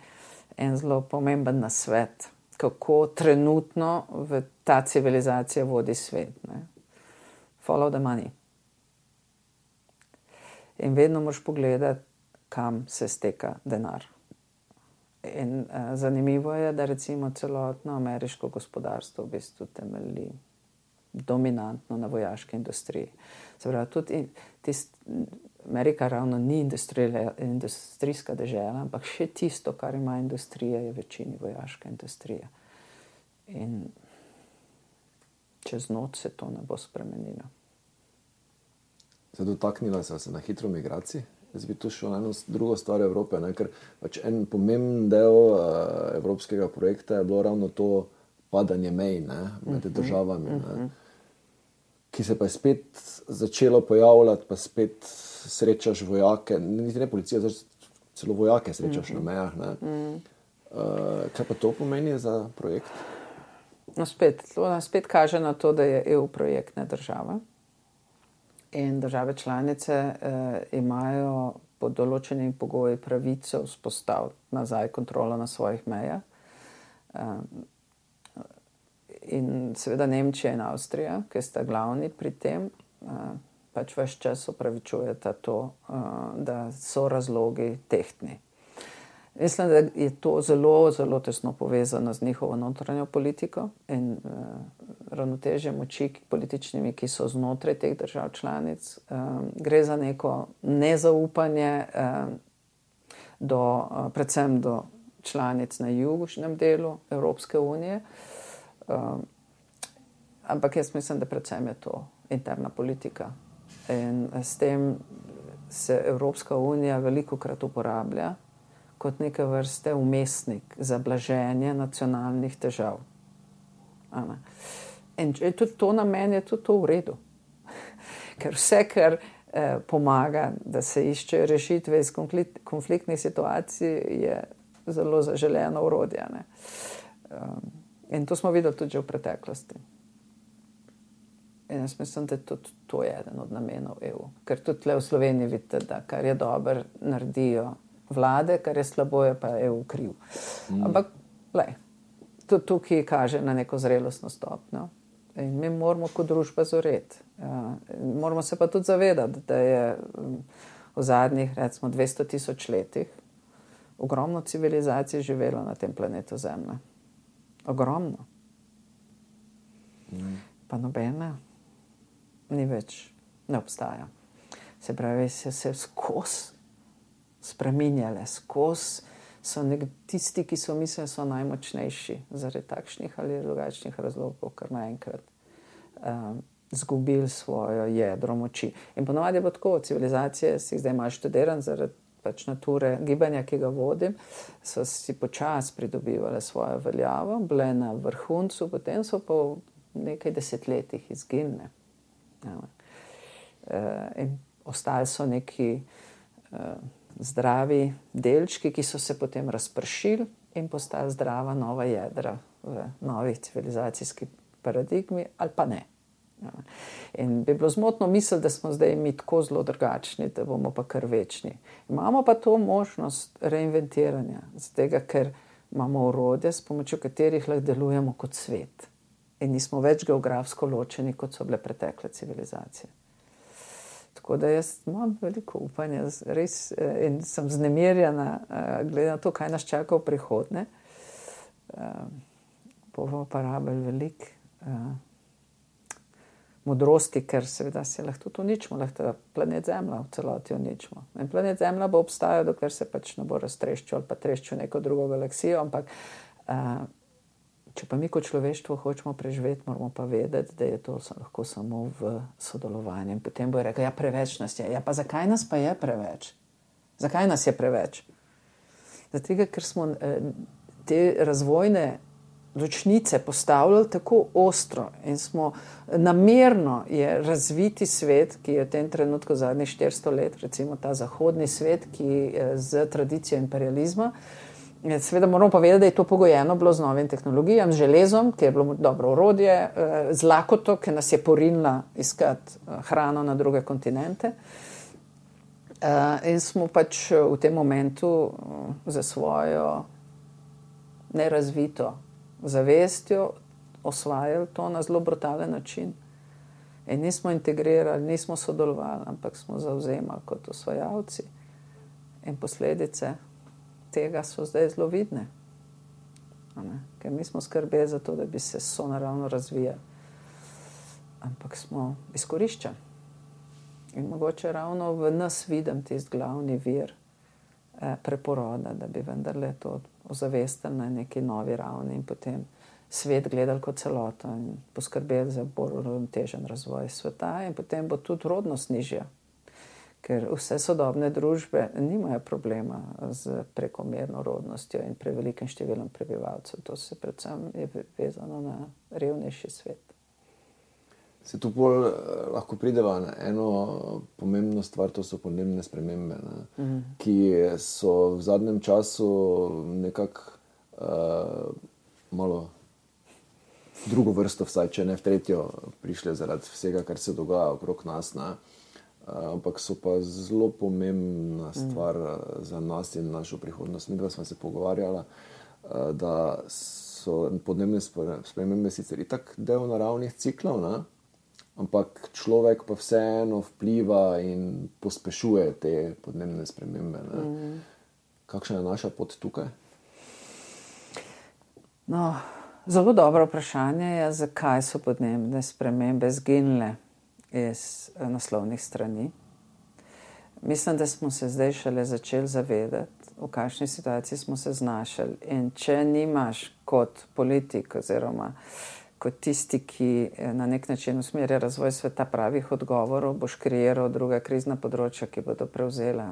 en zelo pomemben nasvet, kako trenutno v ta civilizacija vodi svet. Ne? Follow the money. In vedno moraš pogledati, kam se steka denar. In zanimivo je, da recimo celotno ameriško gospodarstvo v bistvu temelji dominantno na vojaški industriji. Se pravi, tudi Amerika ravno ni industrijska dežela, ampak še tisto, kar ima industrija, je večini vojaška industrija. In čez noč se to ne bo spremenilo. Se dotaknila se na hitro migraciji? Jaz bi tu šel na eno drugo stvar Evrope, ne? Ker pač en pomemben del evropskega projekta je bilo ravno to padanje mej med državami, ki se pa je spet začelo pojavljati, pa spet srečaš vojake, niti ne policija, celo vojake srečaš na mejah. Ne? Kaj pa to pomeni za projekt? To nas spet kaže na to, da je EU projektna država in države članice imajo pod določenimi pogoji pravico vzpostaviti nazaj kontrolo na svojih mejah. In seveda Nemčija in Avstrija, ki sta glavni pri tem, pač ves čas opravičujeta to, da so razlogi tehtni. Mislim, da je to zelo, zelo tesno povezano z njihovo notranjo politiko in ravnotežje moči političnimi, ki so znotraj teh držav članic. Gre za neko nezaupanje predvsem do članic na južnem delu Evropske unije. Ampak jaz mislim, da predvsem je to interna politika. In s tem se Evropska unija velikokrat uporablja kot neke vrste umestnik za blaženje nacionalnih težav. In tudi to na meni je tudi to v redu. Ker vse, kar pomaga, da se iščejo rešitve iz konfliktnih situacij, je zelo zaželeno orodje. In to smo videli tudi že v preteklosti. In jaz mislim, da tudi to je eden od namenov EU. Ker tudi tle v Sloveniji vidite, da kar je dobro naredijo vlade, kar je slabo, je pa EU kriv. Ampak, tudi tukaj kaže na neko zrelostno stopnjo. In mi moramo kot družba zoreti. Moramo se pa tudi zavedati, da je v zadnjih, recimo, 200 tisoč letih ogromno civilizacij živelo na tem planetu Zemlja. Ogromno. Pa nobena ni več, ne obstaja. Se pravi, se skozi spreminjale, skozi so tisti, ki so mislili, so najmočnejši zaradi takšnih ali drugačnih razlogov, kar naenkrat zgubili svojo jedro moči. In ponovadi je bilo tako, civilizacije si zdaj malo študiran zaradi pač nature gibanja, ki ga vodim, so si počasi pridobivale svojo veljavo, bile na vrhuncu, potem so po nekaj desetletjih izginile. In ostali so neki zdravi delčki, ki so se potem razpršili in postali zdrava nova jedra v novih civilizacijski paradigmi, ali pa ne. In bi bilo zmotno misliti, da smo zdaj mi tako zelo drugačni, da bomo pa kar večni. Imamo pa to možnost reinventiranja, zato ker imamo orodje, s pomočjo katerih lahko delujemo kot svet. In nismo več geografsko ločeni, kot so bile pretekle civilizacije. Tako da jaz imam veliko upanja, res, in sem vznemirjena, glede na to, kaj nas čaka v prihodnje. Bomo pa rabili veliko modrosti, ker seveda se lahko tudi uničimo, lahko planet Zemlja v celoti uničimo. In planet Zemlja bo obstajal, dokler se pač ne bo raztreščil ali pa treščil neko drugo galaksijo, ampak če pa mi kot človeštvo hočemo preživeti, moramo pa vedeti, da je to lahko samo v sodelovanju. In potem bo rekel, ja, preveč nas je. Ja, pa zakaj nas pa je preveč? Zakaj nas je preveč? Zato, ker smo te razvojne ločnice postavljali tako ostro in smo namerno je razviti svet, ki je v tem trenutku zadnjih 400 let, recimo ta zahodni svet, ki z tradicijo imperializma. Seveda moramo pa vedeti, da je to pogojeno bilo z novim tehnologijam, z železom, ki je bilo dobro orodje, z lakoto, ki nas je porinila iskati hrano na druge kontinente. In smo pač v tem momentu za svojo nerazvito zavestjo osvajali to na zelo brutalen način. In nismo integrirali, nismo sodelovali, ampak smo zavzemali kot osvajalci. In posledice tega so zdaj zelo vidne. Ker nismo skrbeli za to, da bi se sonaravno razvijali. Ampak smo izkoriščali. In mogoče ravno v nas vidim tisti glavni vir preporoda, da bi vendarle to ozavestili na neki novi ravni in potem svet gledali kot celoto in poskrbeli za bolj uravnotežen razvoj sveta in potem bo tudi rodnost nižja. Ker vse sodobne družbe nimajo problema z prekomerno rodnostjo in prevelikim številom prebivalcev. To se predvsem je vezano na revnejši svet. Se tu bolj lahko prideva na eno pomembno stvar, to so podnebne spremembe, ki so v zadnjem času nekako malo drugo vrsto, vsaj če ne v tretjo, prišle zaradi vsega, kar se dogaja okrog nas. Ne? Ampak so pa zelo pomembna stvar za nas in našo prihodnost. Mi dva smo se pogovarjala, da so podnebne spremembe sicer itak del naravnih ciklov, ne? Ampak človek pa vseeno vpliva in pospešuje te podnebne spremembe. Ne? Kakšna je naša pot tukaj? No, zelo dobro vprašanje je, zakaj so podnebne spremembe zginile iz naslovnih strani. Mislim, da smo se zdaj šele začeli zavedati, v kakšni situaciji smo se znašli. In če nimaš kot politik oziroma kot tisti, ki na nek način usmerja razvoj sveta, pravih odgovorov, boš kreiral druga krizna področja, ki bodo prevzela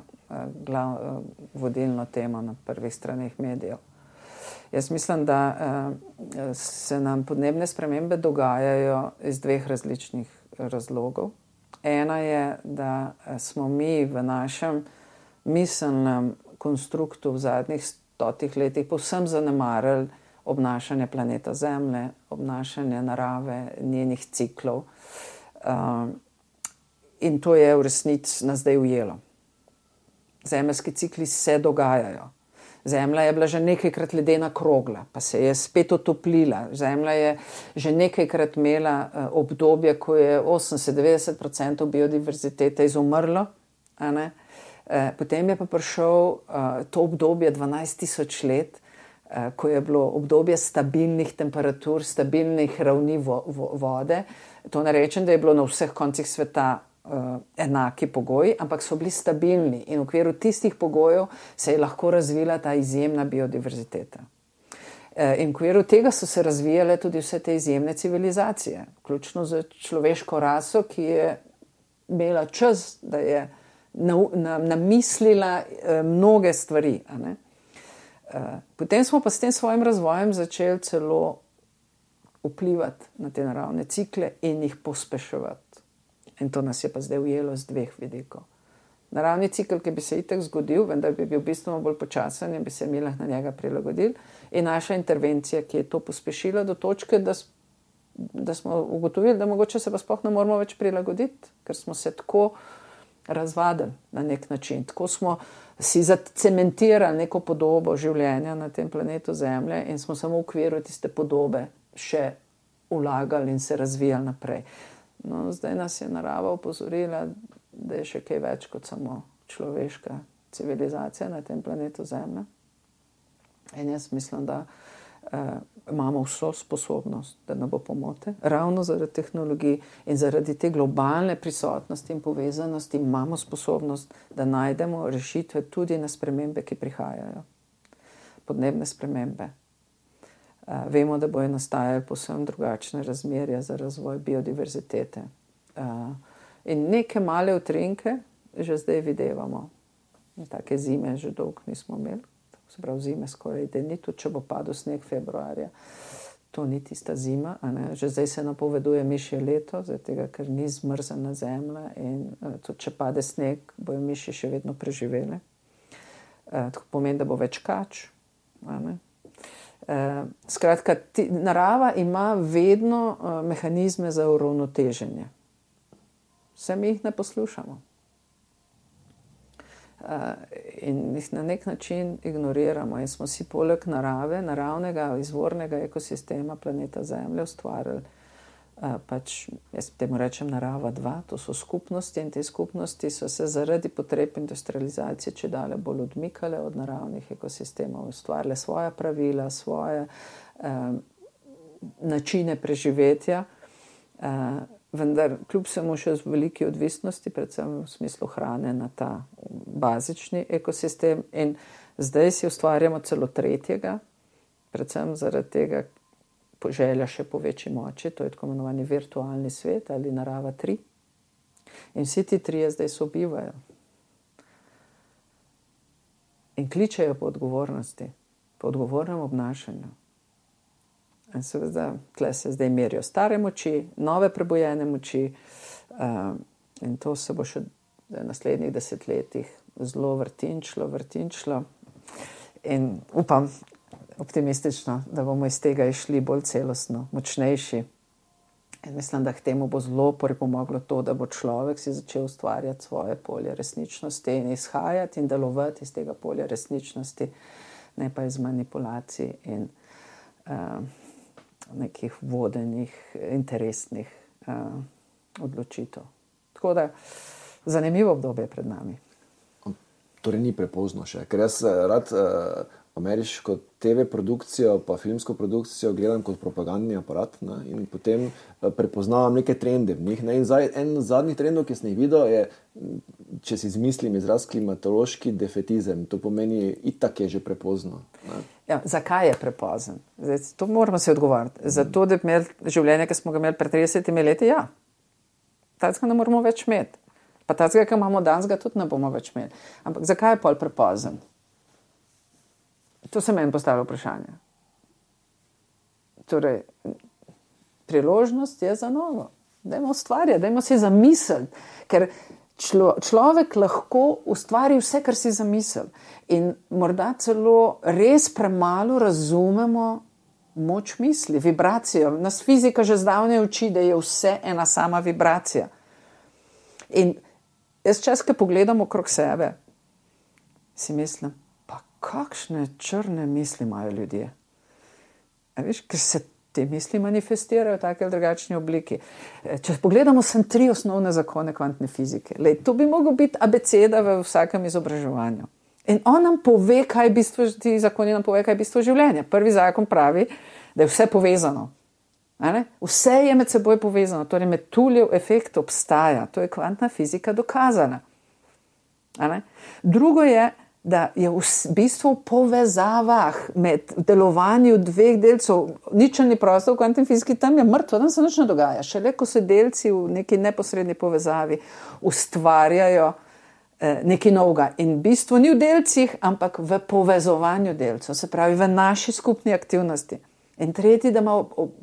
vodilno temo na prvih straneh medijev. Jaz mislim, da se nam podnebne spremembe dogajajo iz dveh različnih razlogov. Ena je, da smo mi v našem miselnem konstruktu v zadnjih 100 letih povsem zanemarili obnašanje planeta Zemlje, obnašanje narave, njenih ciklov. In to je v resnici nas zdaj ujelo. Zemeljski cikli se dogajajo. Zemlja je bila že nekajkrat ledena krogla, pa se je spet otoplila. Zemlja je že nekajkrat imela obdobje, ko je 80-90% biodiverzitete izumrlo. Potem je pa prišel to obdobje 12 000 let, ko je bilo obdobje stabilnih temperatur, stabilnih ravni vode. To ne rečem, da je bilo na vseh koncih sveta enaki pogoji, ampak so bili stabilni in v okviru tistih pogojev se je lahko razvila ta izjemna biodiverziteta. In v okviru tega so se razvijale tudi vse te izjemne civilizacije, vključno z človeško raso, ki je imela čas, da je namislila mnoge stvari. Potem smo pa s tem svojim razvojem začeli celo vplivati na te naravne cikle in jih pospeševati. In to nas je pa zdaj ujelo z dveh vidikov. Naravni cikl, ki bi se itak zgodil, vendar bi bil bistveno bolj počasen in bi se mi lahko na njega prilagodili, in naša intervencija, ki je to pospešila do točke, da smo ugotovili, da mogoče se pa sploh ne moramo več prilagoditi, ker smo se tako razvadili na nek način. Tako smo si zacementirali neko podobo življenja na tem planetu Zemlje in smo samo v okviru tiste podobe še vlagali in se razvijali naprej. No, zdaj nas je narava opozorila, da je še kaj več kot samo človeška civilizacija na tem planetu Zemlja. In jaz mislim, da imamo vso sposobnost, da ne bo pomote. Ravno zaradi tehnologij in zaradi te globalne prisotnosti in povezanosti imamo sposobnost, da najdemo rešitve tudi na spremembe, ki prihajajo. Podnebne spremembe. Vemo, da bojo nastajali povsem drugačne razmerja za razvoj biodiverzitete. In neke male utrinke že zdaj videvamo. Take zime že dolgo nismo imeli. Se pravi, zime skoraj da ni, tudi če bo padel sneg februarja. To ni tista zima. Že zdaj se napoveduje mišje leto, tega, ker ni zmrzena zemlja in tudi če pade sneg, bojo miši še vedno preživele. To pomeni, da bo več kač. Skratka, narava ima vedno mehanizme za uravnoteženje. Vse mi jih ne poslušamo. In jih na nek način ignoriramo in smo si poleg narave, naravnega izvornega ekosistema planeta Zemlje ustvarili jaz temu rečem narava 2, to so skupnosti in te skupnosti so se zaradi potreb industrializacije čedalje bolj odmikale od naravnih ekosistemov, ustvarile svoja pravila, svoje načine preživetja, vendar kljub vsemu še z veliki odvisnosti, predvsem v smislu hrane na ta bazični ekosistem, in zdaj si ustvarjamo celo tretjega, predvsem zaradi tega želja še po večji moči, to je tako imenovani virtualni svet ali narava 3. In vsi ti trije zdaj sobivajo. In kličejo po odgovornosti, po odgovornem obnašanju. In seveda, tle se zdaj merijo stare moči, nove prebujene moči, in to se bo še v naslednjih desetletjih zelo vrtinčilo. In upam, optimistično, da bomo iz tega išli bolj celostno, močnejši. In mislim, da k temu bo zelo pripomoglo to, da bo človek si začel ustvarjati svoje polje resničnosti in izhajati in delovati iz tega polja resničnosti, ne pa iz manipulacij in nekih vodenih, interesnih odločitev. Tako da zanimivo obdobje pred nami. Torej ni prepozno še, ker jaz rad ameriško TV produkcijo pa filmsko produkcijo gledam kot propagandni aparat, ne, in potem prepoznavam neke trende v njih. Ne, in en zadnjih trendov, ki sem jih videl, je, če si izmislim izraz, klimatološki defetizem. To pomeni, itak je že prepozno. Ne. Ja, zakaj je prepozen? Zdaj, to moramo si odgovoriti. Zato, da bi imeli življenje, ki smo ga imeli pred 30 leti, ja. Tacega ne moramo več imeti. Pa tacega, ki imamo danes, ga tudi ne bomo več imeli. Ampak zakaj je pol prepozen? To se meni postavlja vprašanje. Torej, priložnost je za novo. Dajmo ustvarjati, dajmo si zamisliti, ker človek lahko ustvari vse, kar si zamisli. In morda celo res premalo razumemo moč misli, vibracijo. Nas fizika že zdavnaj uči, da je vse ena sama vibracija. In jaz čas, ko pogledam okrog sebe, si mislim, pa kakšne črne misli imajo ljudje. A veš, ker se te misli manifestirajo v taki ali drugačni obliki. Če pogledamo sem 3 osnovne zakone kvantne fizike. Lej, to bi moglo biti abeceda v vsakem izobraževanju. In on nam pove, kaj je bistvo, ti zakoni nam pove, kaj je bistvo življenja. Prvi zakon pravi, da je vse povezano. Vse je med seboj povezano, torej Metuljev efekt obstaja, to je kvantna fizika dokazana. Drugo je, da je v bistvu v povezavah med delovanju dveh delcev, ničelni prostor v kvantni fiziki, tam je mrtvo, tam se nič ne dogaja. Šele ko se delci v neki neposredni povezavi ustvarjajo nekaj novega. In bistvo ni v delcih, ampak v povezovanju delcev, se pravi v naši skupni aktivnosti. In tretji, da ima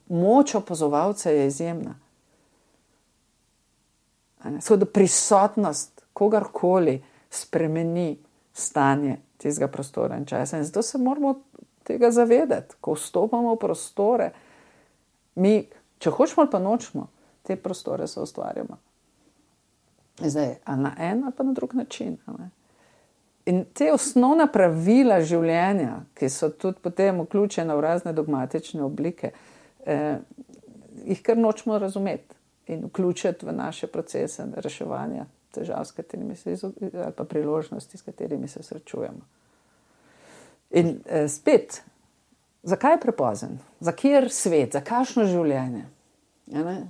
moč opazovalca je izjemna. Tako da prisotnost kogarkoli spremeni stanje tistega prostora in časa. In zato se moramo tega zavedati, ko vstopamo v prostore. Mi, če hočemo ali pa nočemo, te prostore se ustvarjamo. Zdaj, ali na en ali pa na drug način. In te osnovna pravila življenja, ki so tudi potem vključena v razne dogmatične oblike, jih kar nočemo razumeti in vključiti v naše procese reševanja težav, s katerimi se ali pa priložnosti, s katerimi se srečujemo. In spet, zakaj je prepozen? Za kjer svet? Za kakšno življenje?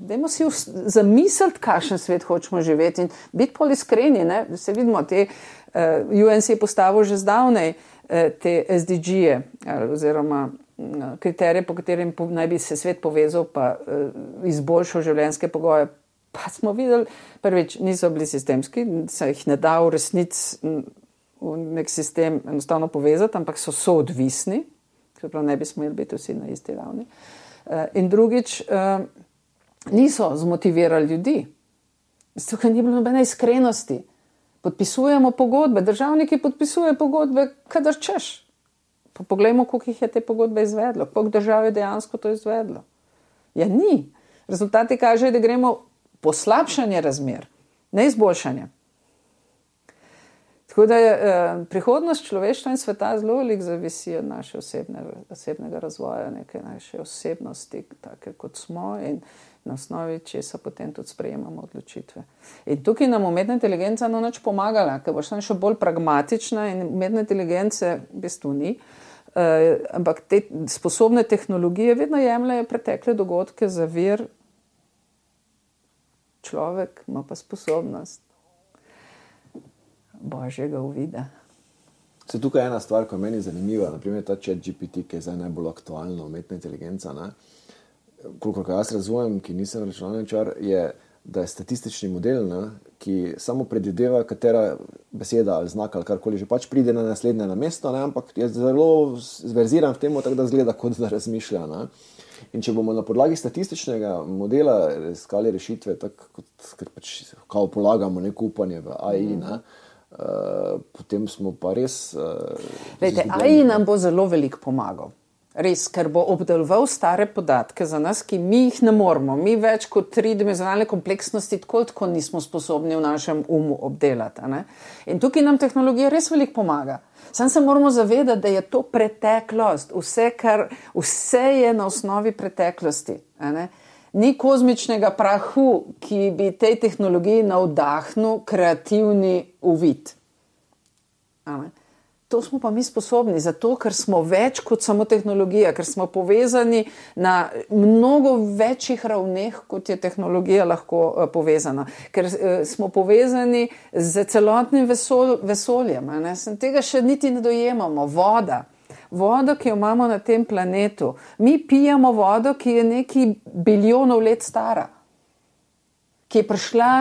Dajmo si zamisliti, kakšen svet hočemo živeti in biti pol iskreni. Se vidimo, UNC je postavil že zdavnej te SDG-je oziroma kriterije, po katerim naj bi se svet povezal pa izboljšal življenjske pogoje. Pa smo videli, prvič, niso bili sistemski, se jih ne da v resnici v nek sistem enostavno povezati, ampak so soodvisni, se pravi, ne bi smeli biti vsi na isti ravni. In drugič, niso zmotivirali ljudi. Tukaj ni bilo nobene iskrenosti. Podpisujemo pogodbe, državniki podpisujejo pogodbe, kadar češ. Pa poglejmo, koliko jih je te pogodbe izvedlo, koliko držav je dejansko to izvedlo. Ja, ni. Rezultati kažejo, da gremo poslabšanje razmer, ne izboljšanje. Tako da je prihodnost človeštva in sveta zelo veliko zavisi od naše osebnega razvoja, neke naše osebnosti, take kot smo in na osnovi česa potem tudi sprejemamo odločitve. In tukaj nam umetna inteligenca no nič pomagala, ker boš tam še bolj pragmatična in umetna inteligence v bistvu ni. Ampak te sposobne tehnologije vedno jemljajo pretekle dogodke za vir. Človek ima pa sposobnost božjega uvida. Se tukaj je ena stvar, ko je meni zanimiva, naprimer ta ChatGPT, ki je zdaj najbolj aktualna umetna inteligenca, kolikor jaz razumem, ki nisem računalničar, je, da je statistični model, ki samo predvideva, katera beseda ali znak ali karkoli že pač pride na naslednje na mesto, ampak je zelo zverziran v tem, tako da zgleda, kot da razmišlja. In če bomo na podlagi statističnega modela iskali rešitve, tako kot pač kao polagamo neko upanje v AI, potem smo pa res... Lejte, AI nam bo zelo veliko pomagal. Res, ker bo obdeloval stare podatke za nas, ki mi jih ne moremo. Mi več kot tridimenzionalne kompleksnosti tako nismo sposobni v našem umu obdelati. A ne? In tukaj nam tehnologija res veliko pomaga. Sam se moramo zavedati, da je to preteklost. Vse je na osnovi preteklosti. A ne? Ni kozmičnega prahu, ki bi tej tehnologiji navdahnil kreativni uvid. A ne? To smo pa mi sposobni, zato ker smo več kot samo tehnologija, ker smo povezani na mnogo večjih ravneh, kot je tehnologija lahko povezana. Ker smo povezani z celotnim vesoljem. Tega še niti ne dojemamo. Voda, ki jo imamo na tem planetu. Mi pijemo vodo, ki je nekaj bilijonov let stara. Ki je prišla,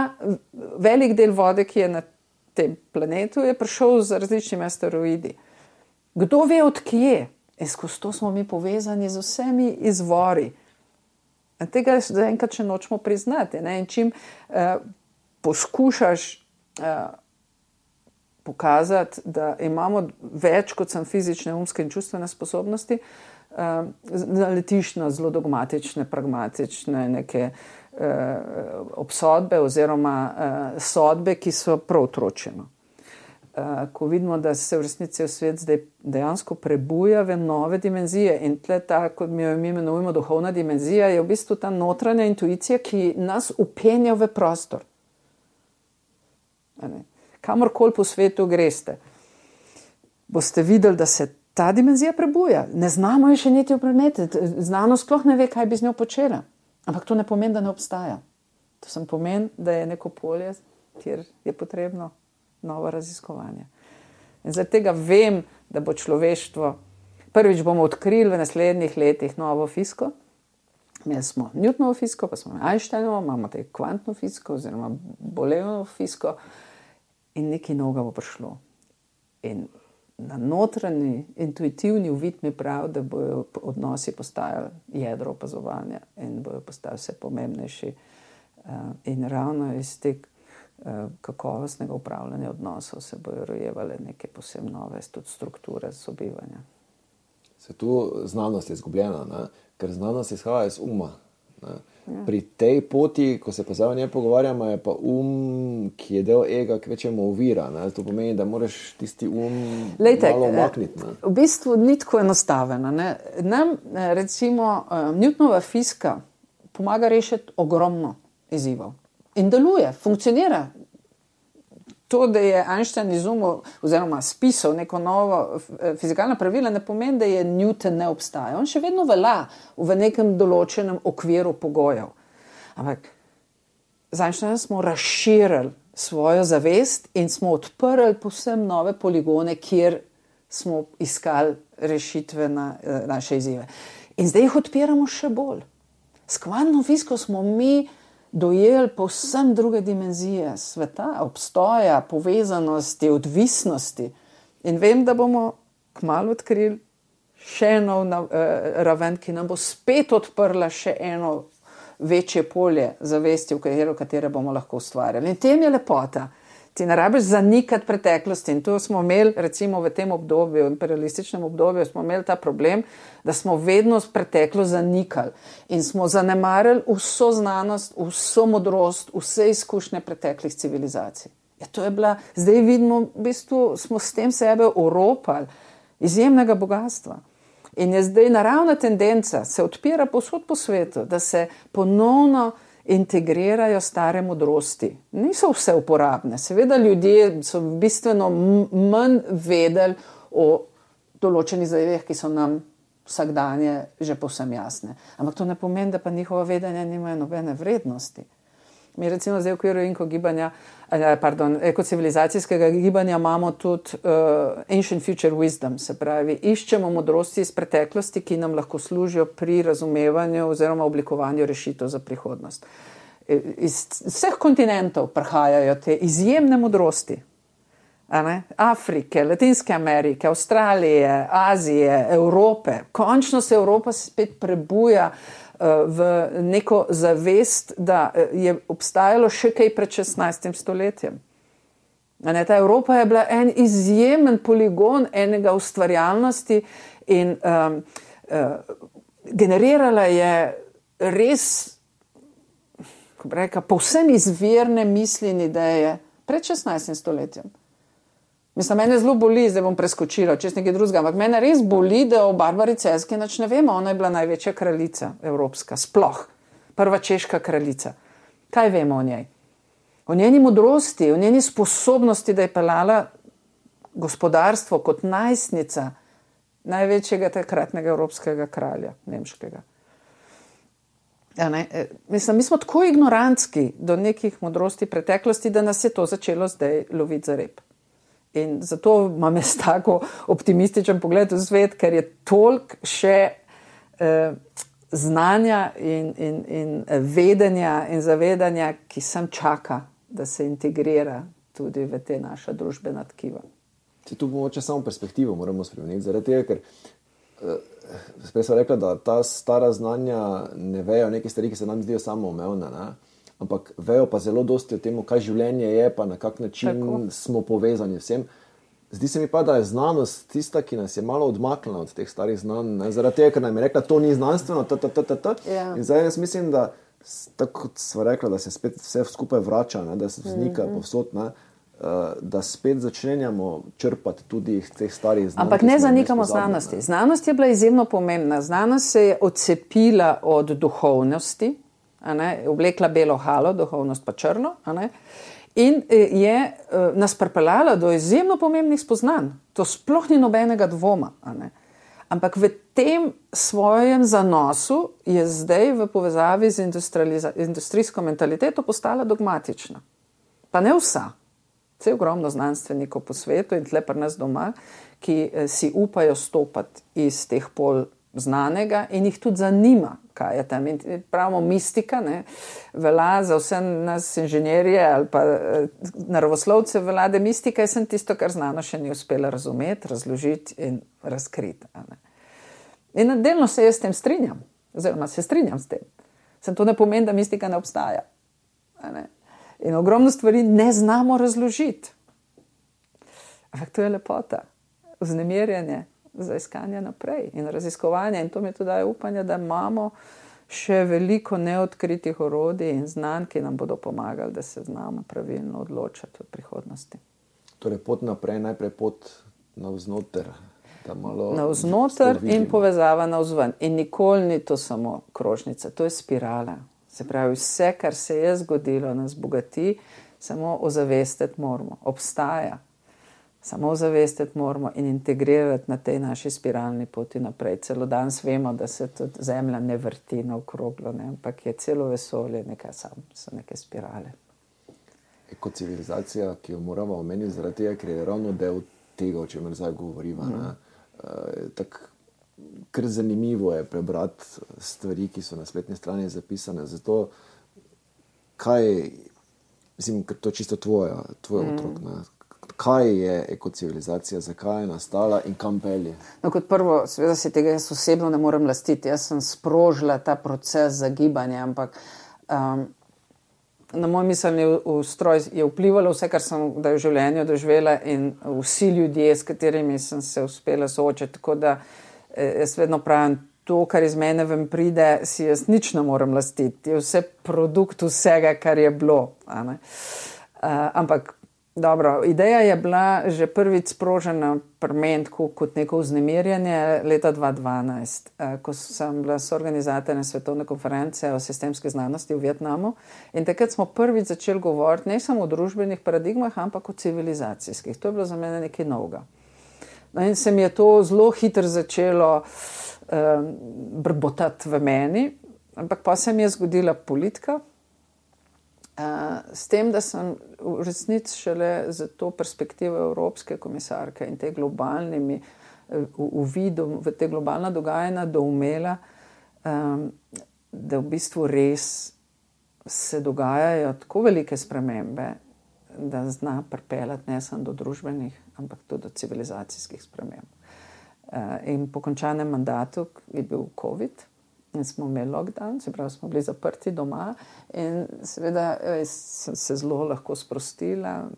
velik del vode, ki je na tem planetu, je prišel z različnimi asteroidi. Kdo ve odkje? Skozi to smo mi povezani z vsemi izvori. Tega zaenkrat še nočemo priznati. Ne? In čim poskušaš pokazati, da imamo več kot sem fizične, umske in čustvene sposobnosti, naletiš na zelo dogmatične, pragmatične neke obsodbe oziroma sodbe, ki so prav otročeno. Ko vidimo, da se v resnici v svet zdaj dejansko prebuja v nove dimenzije in tle ta, kot mi jo imenujemo duhovna dimenzija, je v bistvu ta notranja intuicija, ki nas upenja v prostor. Kamorkoli po svetu greste, boste videli, da se ta dimenzija prebuja. Ne znamo jo še niti opredmetiti. Znanost sploh ne ve, kaj bi z njo počela. Ampak to ne pomeni, da ne obstaja. To sem pomeni, da je neko polje, kjer je potrebno novo raziskovanje. In zaradi tega vem, da bo človeštvo, prvič bomo odkrili v naslednjih letih novo fiziko. Imeli smo Newtonovo fiziko, pa smo Einsteinovo, imamo te kvantno fiziko oziroma Boolenovo fiziko in nekaj novega bo prišlo. In na notranji, intuitivni uvid mi pravi, da bojo odnosi postajali jedro opazovanja in bojo postajali vse pomembnejši. In ravno iz tega kakovostnega upravljanja odnosov se bojo rojevale neke posebno nove tudi strukture sobivanja. Se tu znanost je izgubljena, ne? Ker znanost izhaja iz uma. Ne? Ja. Pri tej poti, ko se pa zdaj o njej pogovarjamo, je pa ki je del ega, kvečemo ovira. Ne? To pomeni, da moraš tisti malo umakniti. Ne? V bistvu ni tako enostaveno. Nam, recimo, Newtonova fizika pomaga rešiti ogromno izzivov. In deluje, funkcionira. To, da je Einstein izumil oziroma spisal neko novo fizikalno pravilo, ne pomeni, da je Newton ne obstaja. On še vedno velja v nekem določenem okviru pogojev. Ampak z Einsteinom smo razširili svojo zavest in smo odprli povsem nove poligone, kjer smo iskali rešitve na naše izzive. In zdaj jih odpiramo še bolj. S kvantno fiziko smo mi dojeli povsem druge dimenzije sveta, obstoja, povezanosti, odvisnosti. In vem, da bomo kmalu odkrili še eno raven, ki nam bo spet odprla še eno večje polje zavesti, v katere bomo lahko ustvarjali. In tem je lepota. Ti ne rabiš zanikati preteklosti. In tu smo imeli, recimo v tem obdobju, imperialističnem obdobju, smo imeli ta problem, da smo vedno preteklo zanikali. In smo zanemarili vso znanost, vso modrost, vse izkušnje preteklih civilizacij. Ja, to je bila, zdaj vidimo, v bistvu smo s tem sebe oropali izjemnega bogatstva. In je zdaj naravna tendenca, se odpira povsod po svetu, da se ponovno integrirajo stare modrosti. Niso vse uporabne. Seveda ljudje so bistveno manj vedeli o določenih zadevah, ki so nam vsakdanje že povsem jasne. Ampak to ne pomeni, da pa njihova vedenja nimajo nobene vrednosti. Mi recimo zdaj v okviru ekocivilizacijskega gibanja imamo tudi ancient future wisdom, se pravi, iščemo modrosti iz preteklosti, ki nam lahko služijo pri razumevanju oziroma oblikovanju rešitev za prihodnost. Iz vseh kontinentov prihajajo te izjemne modrosti. Afrike, Latinske Amerike, Avstralije, Azije, Evrope. Končno se Evropa spet prebuja v neko zavest, da je obstajalo še kaj pred 16. stoletjem. Ta Evropa je bila en izjemen poligon enega ustvarjalnosti in generirala je res, kako bi rekla, povsem izvirne misli in ideje pred 16. stoletjem. Mislim, mene zelo boli, zdaj bom preskočila, čez nekaj drugega, ampak mene res boli, da o Barbari Celjski nič ne vemo. Ona je bila največja kraljica evropska, sploh. Prva češka kraljica. Kaj vemo o njej? O njeni modrosti, o njeni sposobnosti, da je peljala gospodarstvo kot najstnica največjega takratnega evropskega kralja, nemškega. Ja, mislim, mi smo tako ignorantski do nekih modrosti preteklosti, da nas je to začelo zdaj loviti za rep. In zato imam jaz tako optimističen pogled v svet, ker je toliko še znanja in vedenja in zavedanja, ki sem čaka, da se integrira tudi v te naša družbena tkiva. Tu mogoče samo perspektivo moramo spremeniti, zaradi tega, ker sprej sem rekla, da ta stara znanja ne vejo neke stvari, ki se nam zdijo samoumevne, ne? Ampak vejo pa zelo dosti o tem, kaj življenje je, pa na kak način smo povezani vsem. Zdi se mi pa, da je znanost tista, ki nas je malo odmaknila od teh starih znanj, ne? Zaradi tega, ker nam je rekla, to ni znanstveno, In zdaj jaz mislim, da tako kot sva rekla, da se spet vse skupaj vrača, ne? Da se vznika povsod, ne? Da spet začenjamo črpati tudi teh starih znanj. Ampak ne zanikamo znanosti. Znanost je bila izjemno pomembna. Znanost se je odcepila od duhovnosti, oblekla belo halo, duhovnost pa črno, in je nas pripeljala do izjemno pomembnih spoznanj. To sploh ni nobenega dvoma. Ampak v tem svojem zanosu je zdaj v povezavi z industrijsko mentaliteto postala dogmatična. Pa ne vsa. Vse ogromno znanstvenikov po svetu in tle pri nas doma, ki si upajo stopati iz teh pol znanega in jih tudi zanima, kaj je tam. In pravimo mistika, ne, velja za vse nas inženirje ali pa naravoslovce velja mistika, je sem tisto, kar znanost še ni uspela razumeti, razložiti in razkriti. In delno se jaz s tem strinjam, oziroma se strinjam s tem. Sem to ne pomeni, da mistika ne obstaja. In ogromno stvari ne znamo razložiti. Ampak to je lepota, vznemirjanje za iskanje naprej in raziskovanje. In to mi tudi daje upanje, da imamo še veliko neodkritih orodij in znanj, ki nam bodo pomagali, da se znamo pravilno odločati v prihodnosti. Torej pot naprej, najprej pot navznoter. Navznoter in povezava navzven. In nikoli ni to samo krožnica, to je spirala. Se pravi, vse, kar se je zgodilo, nas bogati, samo ozavestiti moramo. Obstaja. Samo ozavestiti moramo in integrirati na tej naši spiralni poti naprej. Celo danes vemo, da se tudi Zemlja ne vrti naokroglo, ne? Ampak je celo vesolje so neke spirale. Ekocivilizacija, ki jo moramo omeniti zaradi tega, ker je ravno del tega, o čemer zdaj govoriva. Tako kar zanimivo je prebrati stvari, ki so na spletni strani zapisane. Zato, mislim, to je čisto tvoj otrok, ne? Kaj je ekocivilizacija, zakaj je nastala in kam pelje? No, kot prvo, seveda si tega jaz osebno ne morem lastiti. Jaz sem sprožila ta proces zagibanja, ampak na moj miselni ustroj je vplivalo vse, kar sem v življenju doživela in vsi ljudje, s katerimi sem se uspela soočiti. Tako da jaz vedno pravim, to, kar iz mene ven pride, si jaz nič ne morem lastiti. Je vse produkt vsega, kar je bilo. Ampak dobro, ideja je bila že prvič sprožena pri meni kot neko vznemirjanje leta 2012, ko sem bila soorganizatorja svetovne konference o sistemski znanosti v Vietnamu in takrat smo prvič začeli govoriti ne samo o družbenih paradigmah, ampak o civilizacijskih. To je bilo za mene nekaj novega. No in se mi je to zelo hitro začelo brbotati v meni, ampak pa se mi je zgodila politika, s tem, da sem v resnici šele za to perspektivo evropske komisarke in te globalnimi uvidom v te globalna dogajanja doumela, da v bistvu res se dogajajo tako velike spremembe, da zna pripeljati ne samo do družbenih, ampak tudi do civilizacijskih sprememb. In po končanem mandatu je bil COVID in smo imeli lockdown, se pravi, smo bili zaprti doma in seveda sem se zelo lahko sprostila,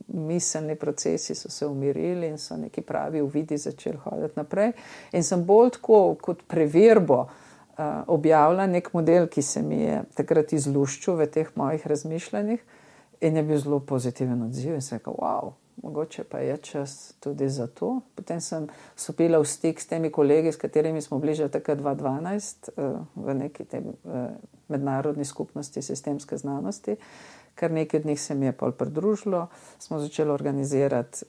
miselni procesi so se umirili in so neki pravi uvidi začeli hoditi naprej. In sem bolj tako kot preverbo objavila nek model, ki se mi je takrat izluščil v teh mojih razmišljanjih in je bil zelo pozitiven odziv in sem rekel, wow, mogoče pa je čas tudi za to. Potem sem stopila v stik s temi kolegi, s katerimi smo bili že takrat 2012 v neki mednarodni skupnosti sistemske znanosti, kar nekaj od njih se mi je pol pridružilo, smo začeli organizirati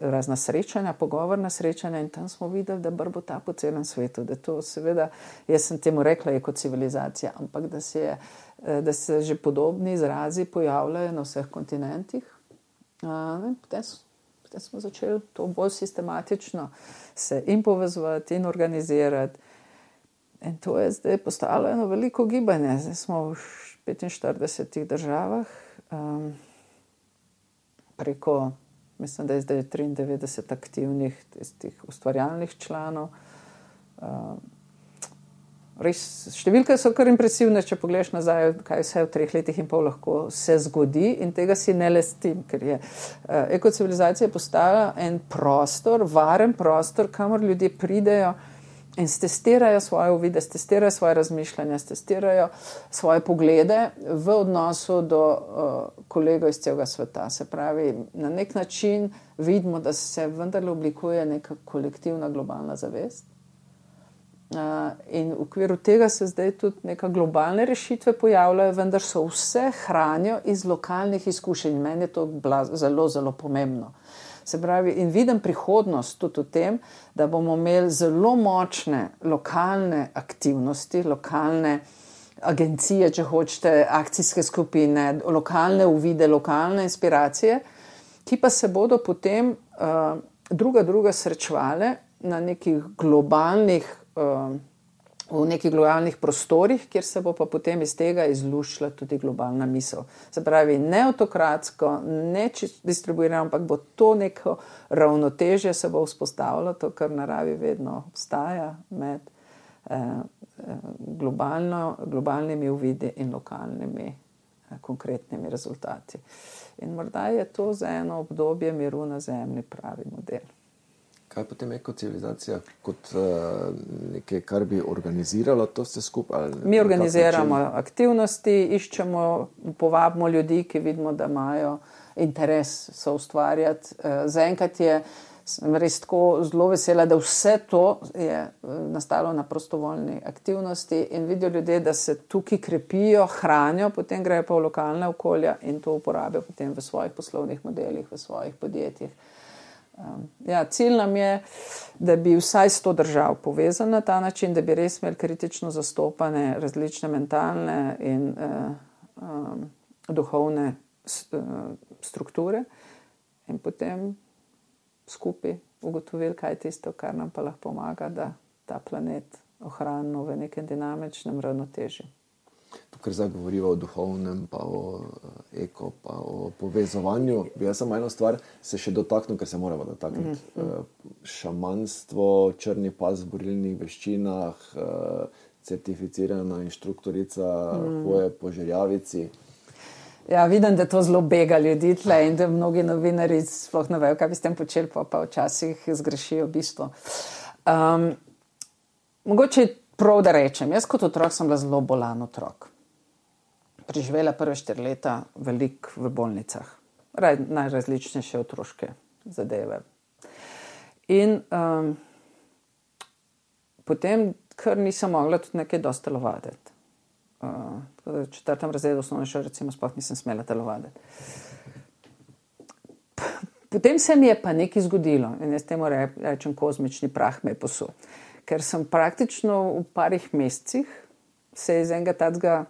razna srečanja, pogovorna srečanja in tam smo videli, da brbo ta po celem svetu, da to seveda, jaz sem temu rekla, je kot civilizacija, ampak da se že podobni izrazi pojavljajo na vseh kontinentih. Potem smo začeli to bolj sistematično se in povezovati in organizirati. In to je zdaj postalo eno veliko gibanje. Zdaj smo v 45 državah, preko, mislim, da je zdaj 93 aktivnih tistih ustvarjalnih članov. Res, številke so kar impresivne, če pogledaš nazaj, kaj vse v 3 letih in pol lahko se zgodi in tega si ne lestim, ker je ekocivilizacija postala en prostor, varen prostor, kamor ljudje pridejo in stestirajo svoje uvide, stestirajo svoje razmišljanja, stestirajo svoje poglede v odnosu do kolegov iz celega sveta. Se pravi, na nek način vidimo, da se vendarle oblikuje neka kolektivna globalna zavest. In v okviru tega se zdaj tudi neka globalne rešitve pojavljajo, vendar so vse hranijo iz lokalnih izkušenj. Meni je to zelo, zelo pomembno. Se pravi, in vidim prihodnost tudi v tem, da bomo imeli zelo močne lokalne aktivnosti, lokalne agencije, če hočete, akcijske skupine, lokalne uvide, lokalne inspiracije, ki pa se bodo potem druga srečevale na nekih globalnih v nekih globalnih prostorih, kjer se bo pa potem iz tega izluščila tudi globalna misel. Se pravi, ne autokratsko, ne distribuirano, ampak bo to neko ravnotežje se bo vzpostavilo, to, kar v naravi vedno obstaja med globalnimi uvidi in lokalnimi konkretnimi rezultati. In morda je to za eno obdobje miru na zemlji pravi model. Kaj potem ekocivilizacija kot nekaj, kar bi organiziralo to vse skupaj? Mi organiziramo aktivnosti, iščemo, povabimo ljudi, ki vidimo, da imajo interes soustvarjati. Zaenkrat sem res tako zelo vesela, da vse to je nastalo na prostovoljni aktivnosti in vidijo ljudje, da se tukaj krepijo, hranijo, potem grejo pa v lokalne okolja in to uporabijo potem v svojih poslovnih modelih, v svojih podjetjih. Cilj nam je, da bi vsaj 100 držav povezali na ta način, da bi res imeli kritično zastopane različne mentalne in duhovne strukture in potem skupaj ugotovili, kaj je tisto, kar nam pa lahko pomaga, da ta planet ohranimo v nekem dinamičnem ravnotežju. Tukaj zdaj govoriva o duhovnem, pa o eko, pa o povezovanju. Jaz sem eno stvar se še dotaknil, ker se moramo dotakniti. Šamanstvo, črni pas v borilnih veščinah, certificirana inštruktorica hoje po žerjavici. Ja, vidim, da to zelo bega ljudi tle in da mnogi novinari sploh ne vejo, kaj bi s tem počeli, pa včasih zgrešijo bistvo. Mogoče prav, da rečem, jaz kot otrok sem bila zelo bolan otrok. Preživela prve 4 leta veliko v bolnicah. Najrazličnejše otroške zadeve. In potem, ker nisem mogla tudi nekaj dosti telovaditi. V 4. razredu osnovne šole recimo sploh nisem smela telovaditi. Potem se mi je pa nekaj zgodilo in jaz temu rečem kozmični prah me je posul. Ker sem praktično v parih mesecih se iz enega tacga,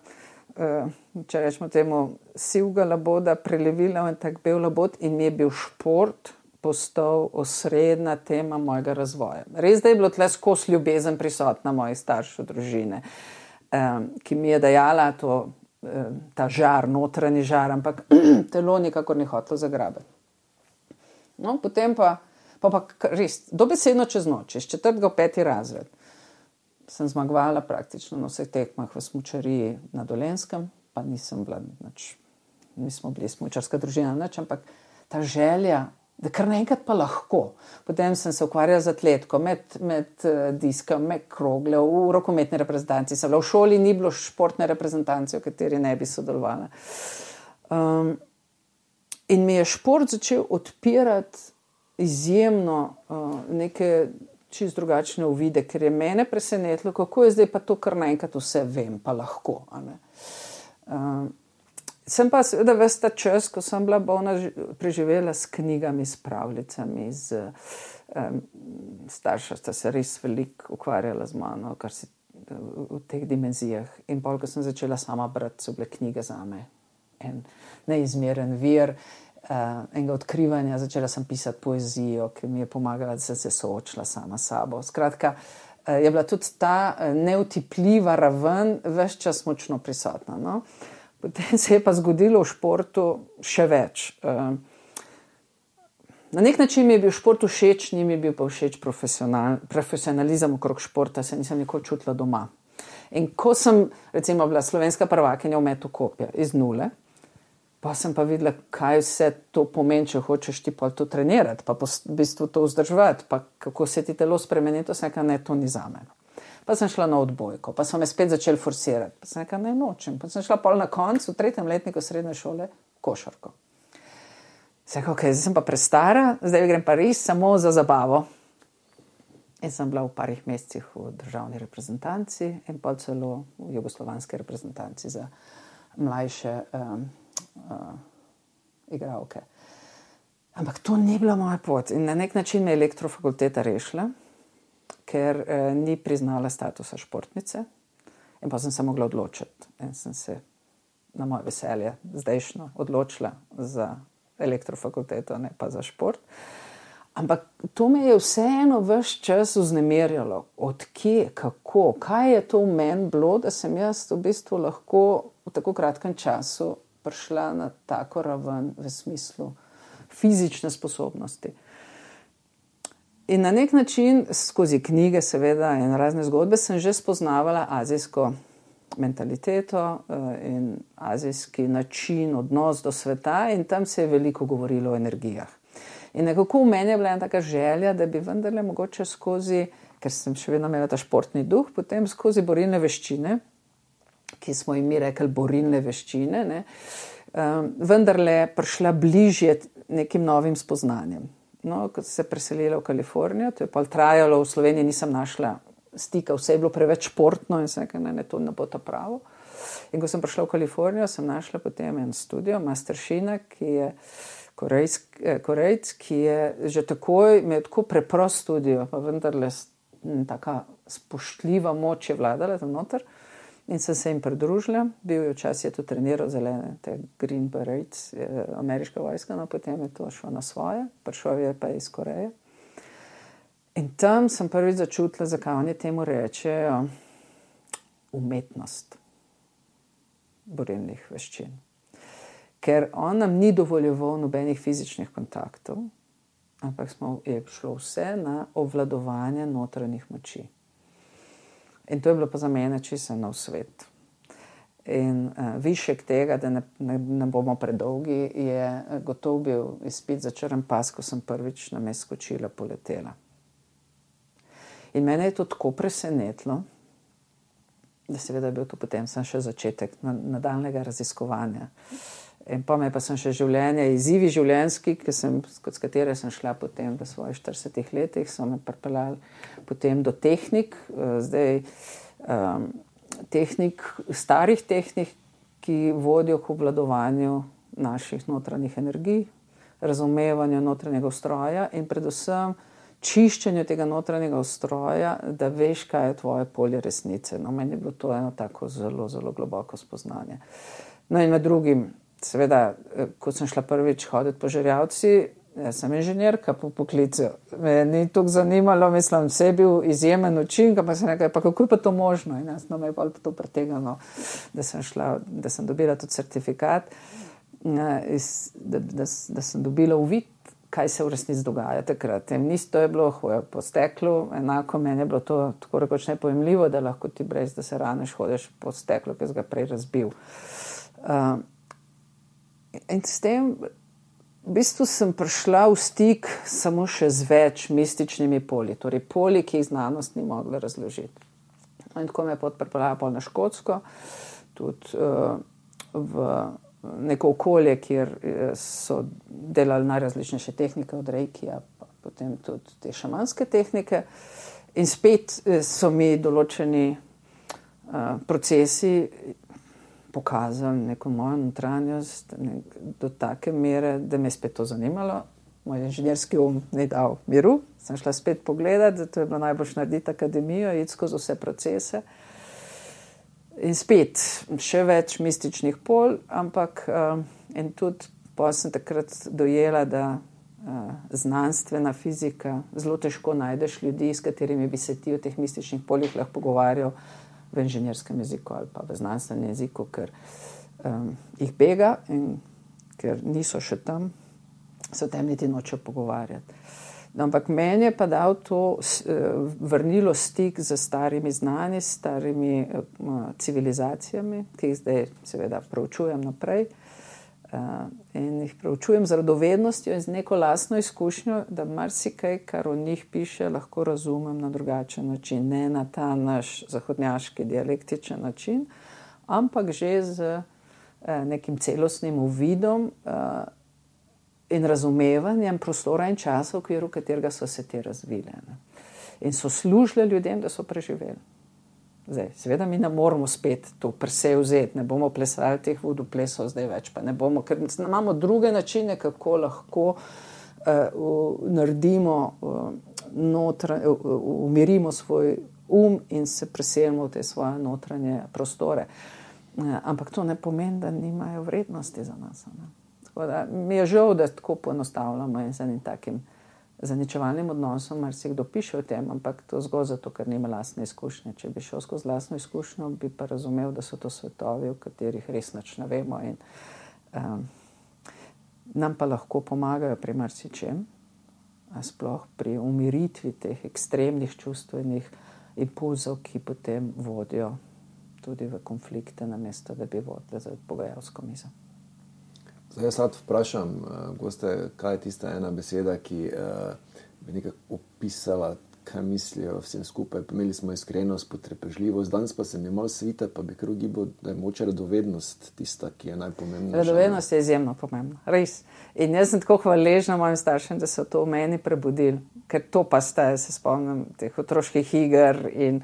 če rečemo temu, sivga laboda prelevila v en tak bel labod in mi je bil šport postal osrednja tema mojega razvoja. Res, da je bilo tle skozi ljubezen prisotna mojih staršev, družine, ki mi je dajala ta žar, notranji žar, ampak telo nikakor ni hotelo zagrabiti. No, potem pa res, dobesedno čez noč, iz 4. v 5. razred, sem zmagovala praktično na vseh tekmah v smučariji na Dolenjskem, pa nisem bila mi smo bili smučarska družina, nič, ampak ta želja, da kar naenkrat pa lahko. Potem sem se ukvarjala z atletko, med diskom, med krogle, v rokometni reprezentanci. V šoli ni bilo športne reprezentance, v kateri ne bi sodelovala. In mi je šport začel odpirati izjemno neke čisto drugačne uvide, ker je mene presenetilo, kako je zdaj pa to, kar naenkrat vse vem, pa lahko. Sem pa seveda ves ta čas, ko sem bila bolna, preživela s knjigami, s pravljicami, starša sta se res veliko ukvarjala z mano, kar si v teh dimenzijah. In pol, ko sem začela sama brati, so bile knjige zame en neizmeren vir enega odkrivanja. Začela sem pisati poezijo, ki mi je pomagala, da sem se soočila sama s sabo. Skratka, je bila tudi ta neutipljiva raven ves čas močno prisotna. No? Potem se je pa zgodilo v športu še več. Na nek način mi je bil šport všeč, ni mi bil pa všeč profesionalizem okrog športa, se nisem nikoli čutila doma. In ko sem recimo bila slovenska prvakinja v metu kopja iz nule, pa sem pa videla, kaj vse to pomeni, če hočeš ti pa to trenirati, pa v bistvu to vzdrževati, pa kako se ti telo spremeni, to sem rekla, ne, to ni zame. Pa sem šla na odbojko, pa so me spet začeli forsirati, pa sem rekla, ne nočem. Pa sem šla pol na koncu, v 3. letniku srednje šole, košarko. Sem rekla, ok, zdaj sem pa prestara, zdaj grem pa res samo za zabavo. In sem bila v parih mesecih v državni reprezentanci in pa celo v jugoslovanski reprezentanci za mlajše igralke. Ampak to ni bila moja pot in na nek način me je elektrofakulteta rešila, ker ni priznala statusa športnice in pa sem se mogla odločiti. In sem se na moje veselje zdajšnjo odločila za elektrofakulteto, ne pa za šport. Ampak to me je vseeno ves čas vznemirjalo. Od kje, kako, kaj je to v meni bilo, da sem jaz v bistvu lahko v tako kratkem času prišla na tako raven v smislu fizične sposobnosti. In na nek način, skozi knjige seveda in razne zgodbe, sem že spoznavala azijsko mentaliteto in azijski način, odnos do sveta in tam se je veliko govorilo o energijah. In nekako v meni je bila ena taka želja, da bi vendarle mogoče skozi, ker sem še vedno imela ta športni duh, potem skozi borilne veščine, ki smo jim mi rekli borilne veščine, ne, vendarle prišla bližje nekim novim spoznanjem. No, ko sem se preselila v Kalifornijo, to je pa trajalo, v Sloveniji nisem našla stika, vse je bilo preveč športno in sem rekla, ne, to ne bo to pravo. In ko sem prišla v Kalifornijo, sem našla potem en studio, Masteršina, ki je Korejc, ki je že takoj, imel tako preprost studio, pa vendarle taka spoštljiva moč je vladala tam noter in sem se jim pridružila. Bil je včasih to treniral zelene, te Green Berets, ameriška vojska, no potem je to šlo na svoje, prišel je pa iz Koreje. In tam sem prvič začutila, zakaj oni temu rečejo umetnost borilnih veščin. Ker on nam ni dovoljeval nobenih fizičnih kontaktov, ampak je šlo vse na obvladovanje notranjih moči. In to je bilo pa za mene čisto nov svet. In višek tega, da ne bomo predolgi, je gotov bil izpit za črn pas, ko sem prvič na mest skočila, poletela. In mene je to tako presenetilo, da seveda je bil to potem še začetek nadaljnega raziskovanja. In pa me pa sem še življenje, izzivi življenjski, s katere sem šla potem v svojih 40 letih, so me pripeljali potem do tehnik, starih tehnik, ki vodijo k obvladovanju naših notranjih energij, razumevanju notranjega ustroja in predvsem čiščenju tega notranjega ustroja, da veš, kaj je tvoje polje resnice. No, meni je bilo to eno tako zelo, zelo globoko spoznanje. No in med drugim, seveda, ko sem šla prvič hoditi po Žerjavci, jaz sem inženirka po poklicu. Me ni toliko zanimalo, mislim, vse je bil izjemen učinek, pa sem rekla, pa kako je pa to možno? In jaz me je pa to pretegalo, da sem dobila tudi certifikat, da sem dobila uvid, kaj se v resnici dogaja takrat. In isto je bilo hoja po steklu, enako meni je bilo to tako rekoč nepojemljivo, da lahko ti brez, da se raneš, hodeš po steklu, ki si ga prej razbil. In s tem v bistvu sem prišla v stik samo še z več mističnimi polji, torej polji, ki jih znanost ni mogla razložiti. In tako me je pripeljala na Škotsko, tudi v neko okolje, kjer so delali najrazličnejše tehnike od reikija, pa potem tudi te šamanske tehnike. In spet so mi določeni procesi pokazali neko mojo notranjost do take mere, da me je spet to zanimalo. Moj inženirski ni dal miru. Sem šla spet pogledati, da to je bilo najbolj narediti akademijo, iti skozi vse procese. In spet še več mističnih polj, ampak in tudi potem sem takrat dojela, da znanstvena fizika, zelo težko najdeš ljudi, s katerimi bi se ti o teh mističnih poljih lahko pogovarjal v inženirskem jeziku ali pa v znanstvenem jeziku, ker jih bega in ker niso še tam, se o tem niti nočejo pogovarjati. No, ampak meni je pa dal to vrnilo stik z starimi znanji, s starimi civilizacijami, ki jih zdaj seveda preučujem naprej. In jih preučujem z radovednostjo in z neko lastno izkušnjo, da marsikaj, kar o njih piše, lahko razumem na drugačen način, ne na ta naš zahodnjaški dialektičen način, ampak že z nekim celostnim uvidom in razumevanjem prostora in časa, v okviru katerega so se te razvile. In so služile ljudem, da so preživeli. Zdaj, seveda mi ne moramo spet to presej vzeti, ne bomo plesali teh vodoplesov zdaj več, pa ne bomo, ker imamo druge načine, kako lahko naredimo, umirimo svoj in se preselimo v te svoje notranje prostore. Ampak to ne pomeni, da nimajo vrednosti za nas. Ne? Tako da mi je žal, da tako poenostavljamo in z enim takim zaničevalnim odnosom, mar si kdo piše o tem, ampak to zgolj zato, ker nima lastne izkušnje. Če bi šel skozi lastno izkušnjo, bi pa razumel, da so to svetovi, v katerih res nič ne vemo in nam pa lahko pomagajo pri marsičem, sploh pri umiritvi teh ekstremnih čustvenih impulzov, ki potem vodijo tudi v konflikte, namesto da bi vodile za pogajalsko mizo. Zdaj, jaz sad vprašam, goste, kaj je tista ena beseda, ki bi nekako opisala, kaj mislijo vsem skupaj. Imeli smo iskrenost, potrpežljivost, danes pa se mi malo svita, pa bi kar ugibal, da je moče radovednost tista, ki je najpomembnejša. Radovednost je izjemno pomembna, res. In jaz sem tako hvaležna mojim staršem, da so to v meni prebudili, ker to pa staje, se spomnim teh otroških iger in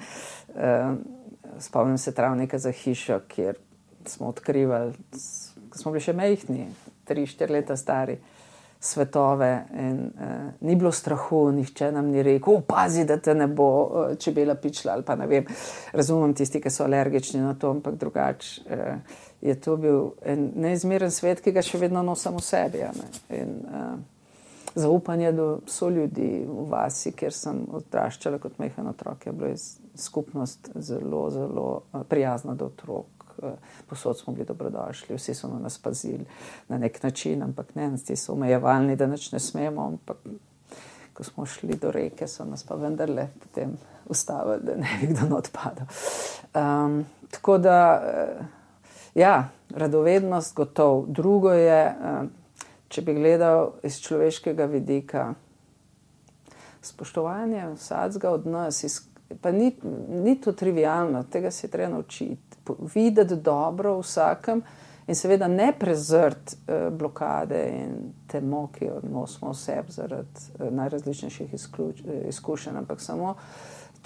spomnim se travnika za hišo, kjer smo odkrivali, ko smo bili še majhni, 3-4 leta stari, svetove in ni bilo strahu, nihče nam ni rekel, pazi, da te ne bo čebela pičila ali pa ne vem, razumem tisti, ki so alergični na to, ampak drugače je to bil en neizmeren svet, ki ga še vedno nosim v sebi. In zaupanje do soljudi v vasi, kjer sem odraščala kot majhen otrok, je bila skupnost zelo, zelo prijazna do otrok. Posod smo bili dobrodošli, vsi so nas pazili na nek način, ampak ne, ti so omejevalni, da nič ne smemo, ampak ko smo šli do reke, so nas pa vendarle potem ustavili, da ne bi kdo odpadal. Tako da, ja, radovednost gotov. Drugo je, če bi gledal iz človeškega vidika, spoštovanje vsakega od nas, pa ni to trivialno, tega se je treba naučiti. Videti dobro vsakem in seveda ne prezrti blokade in temo, ki jo nosimo v sebi zaradi najrazličnejših izkušenj, ampak samo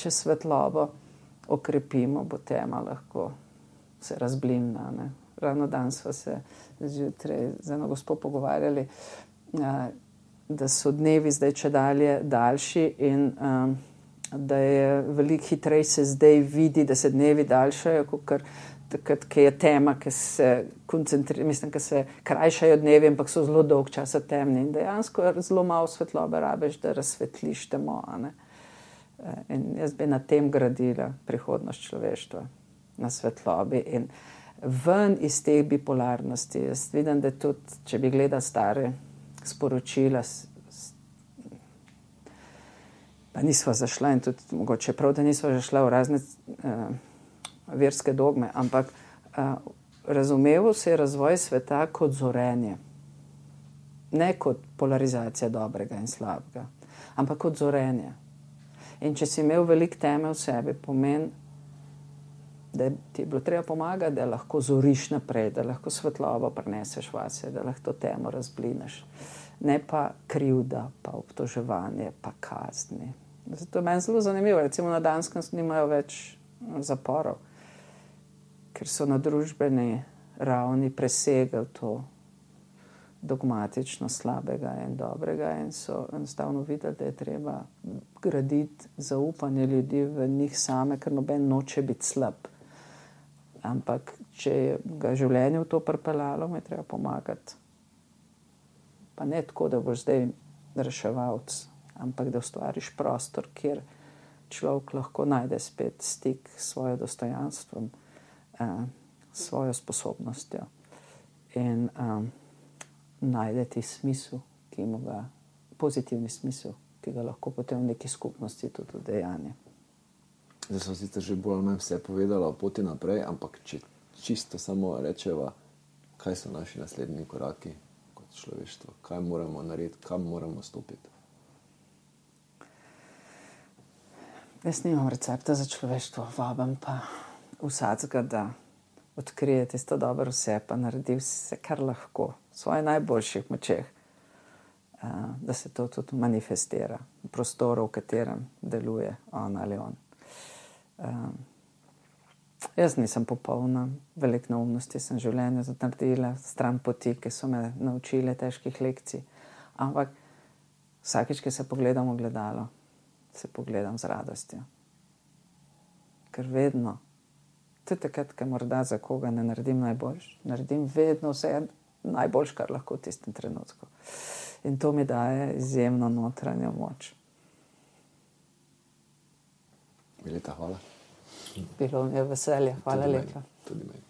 če svetlobo okrepimo, bo tema lahko se razblinila. Ravno danes sva se zjutraj z eno gospo pogovarjali, da so dnevi zdaj čedalje daljši in da je veliko hitreje se zdaj vidi, da se dnevi daljšajo, kot takrat, ki je tema, ki se ki se krajšajo dnevi, ampak so zelo dolg časa temni. In dejansko zelo malo svetlobe rabiš, da razsvetliš temo. In jaz bi na tem gradila prihodnost človeštva, na svetlobi in ven iz teh bipolarnosti. Jaz vidim, da tudi, če bi gledal stare sporočila, pa nisva zašla in tudi mogoče prav, da nisva zašla v razne verske dogme, ampak razumeval se je razvoj sveta kot zorenje. Ne kot polarizacija dobrega in slabega, ampak kot zorenje. In če si imel veliko teme v sebi, pomeni, da ti je bilo treba pomagati, da lahko zoriš naprej, da lahko svetlobo prineseš vase, da lahko to temo razblineš. Ne pa krivda, pa obtoževanje, pa kazni. Zato je meni zelo zanimivo. Recimo na Danskem nimajo več zaporov, ker so na družbeni ravni presegli to dogmatično slabega in dobrega in so enostavno videli, da je treba graditi zaupanje ljudi v njih same, ker noben noče biti slab. Ampak če je ga življenje v to pripeljalo, mu je treba pomagati. Pa ne tako, da boš zdaj reševalc, ampak da ustvariš prostor, kjer človek lahko najde spet stik s svojim dostojanstvom, s svojo sposobnostjo in najde ti smisel, ki ima ga, pozitivni smisel, ki ga lahko potem v neki skupnosti tudi udejanja. Zdaj smo sicer že bolj ali manj vse povedala o poti naprej, ampak če čisto samo rečeva, kaj so naši naslednji koraki kot človeštvo, kaj moramo narediti, kam moramo stopiti. Jaz nimam recepta za človeštvo, vabim pa vsakega, da odkrije tisto dobro vse, pa naredi vse, kar lahko, v svojih najboljših močeh, da se to tudi manifestira v prostoru, v katerem deluje on ali on. Jaz nisem popolna, veliko neumnosti sem v življenju naredila, stran poti, ki so me naučile težkih lekcij, ampak vsakič, ki se pogledam v gledalo, se pogledam z radostjo. Ker vedno, tudi takrat, ker morda za koga ne naredim najboljš, naredim vedno vse najboljš, kar lahko v tistem trenutku. In to mi daje izjemno notranjo moč. Mileta, hvala. Bilo mi je veselje. Hvala lepa. Tudi meni.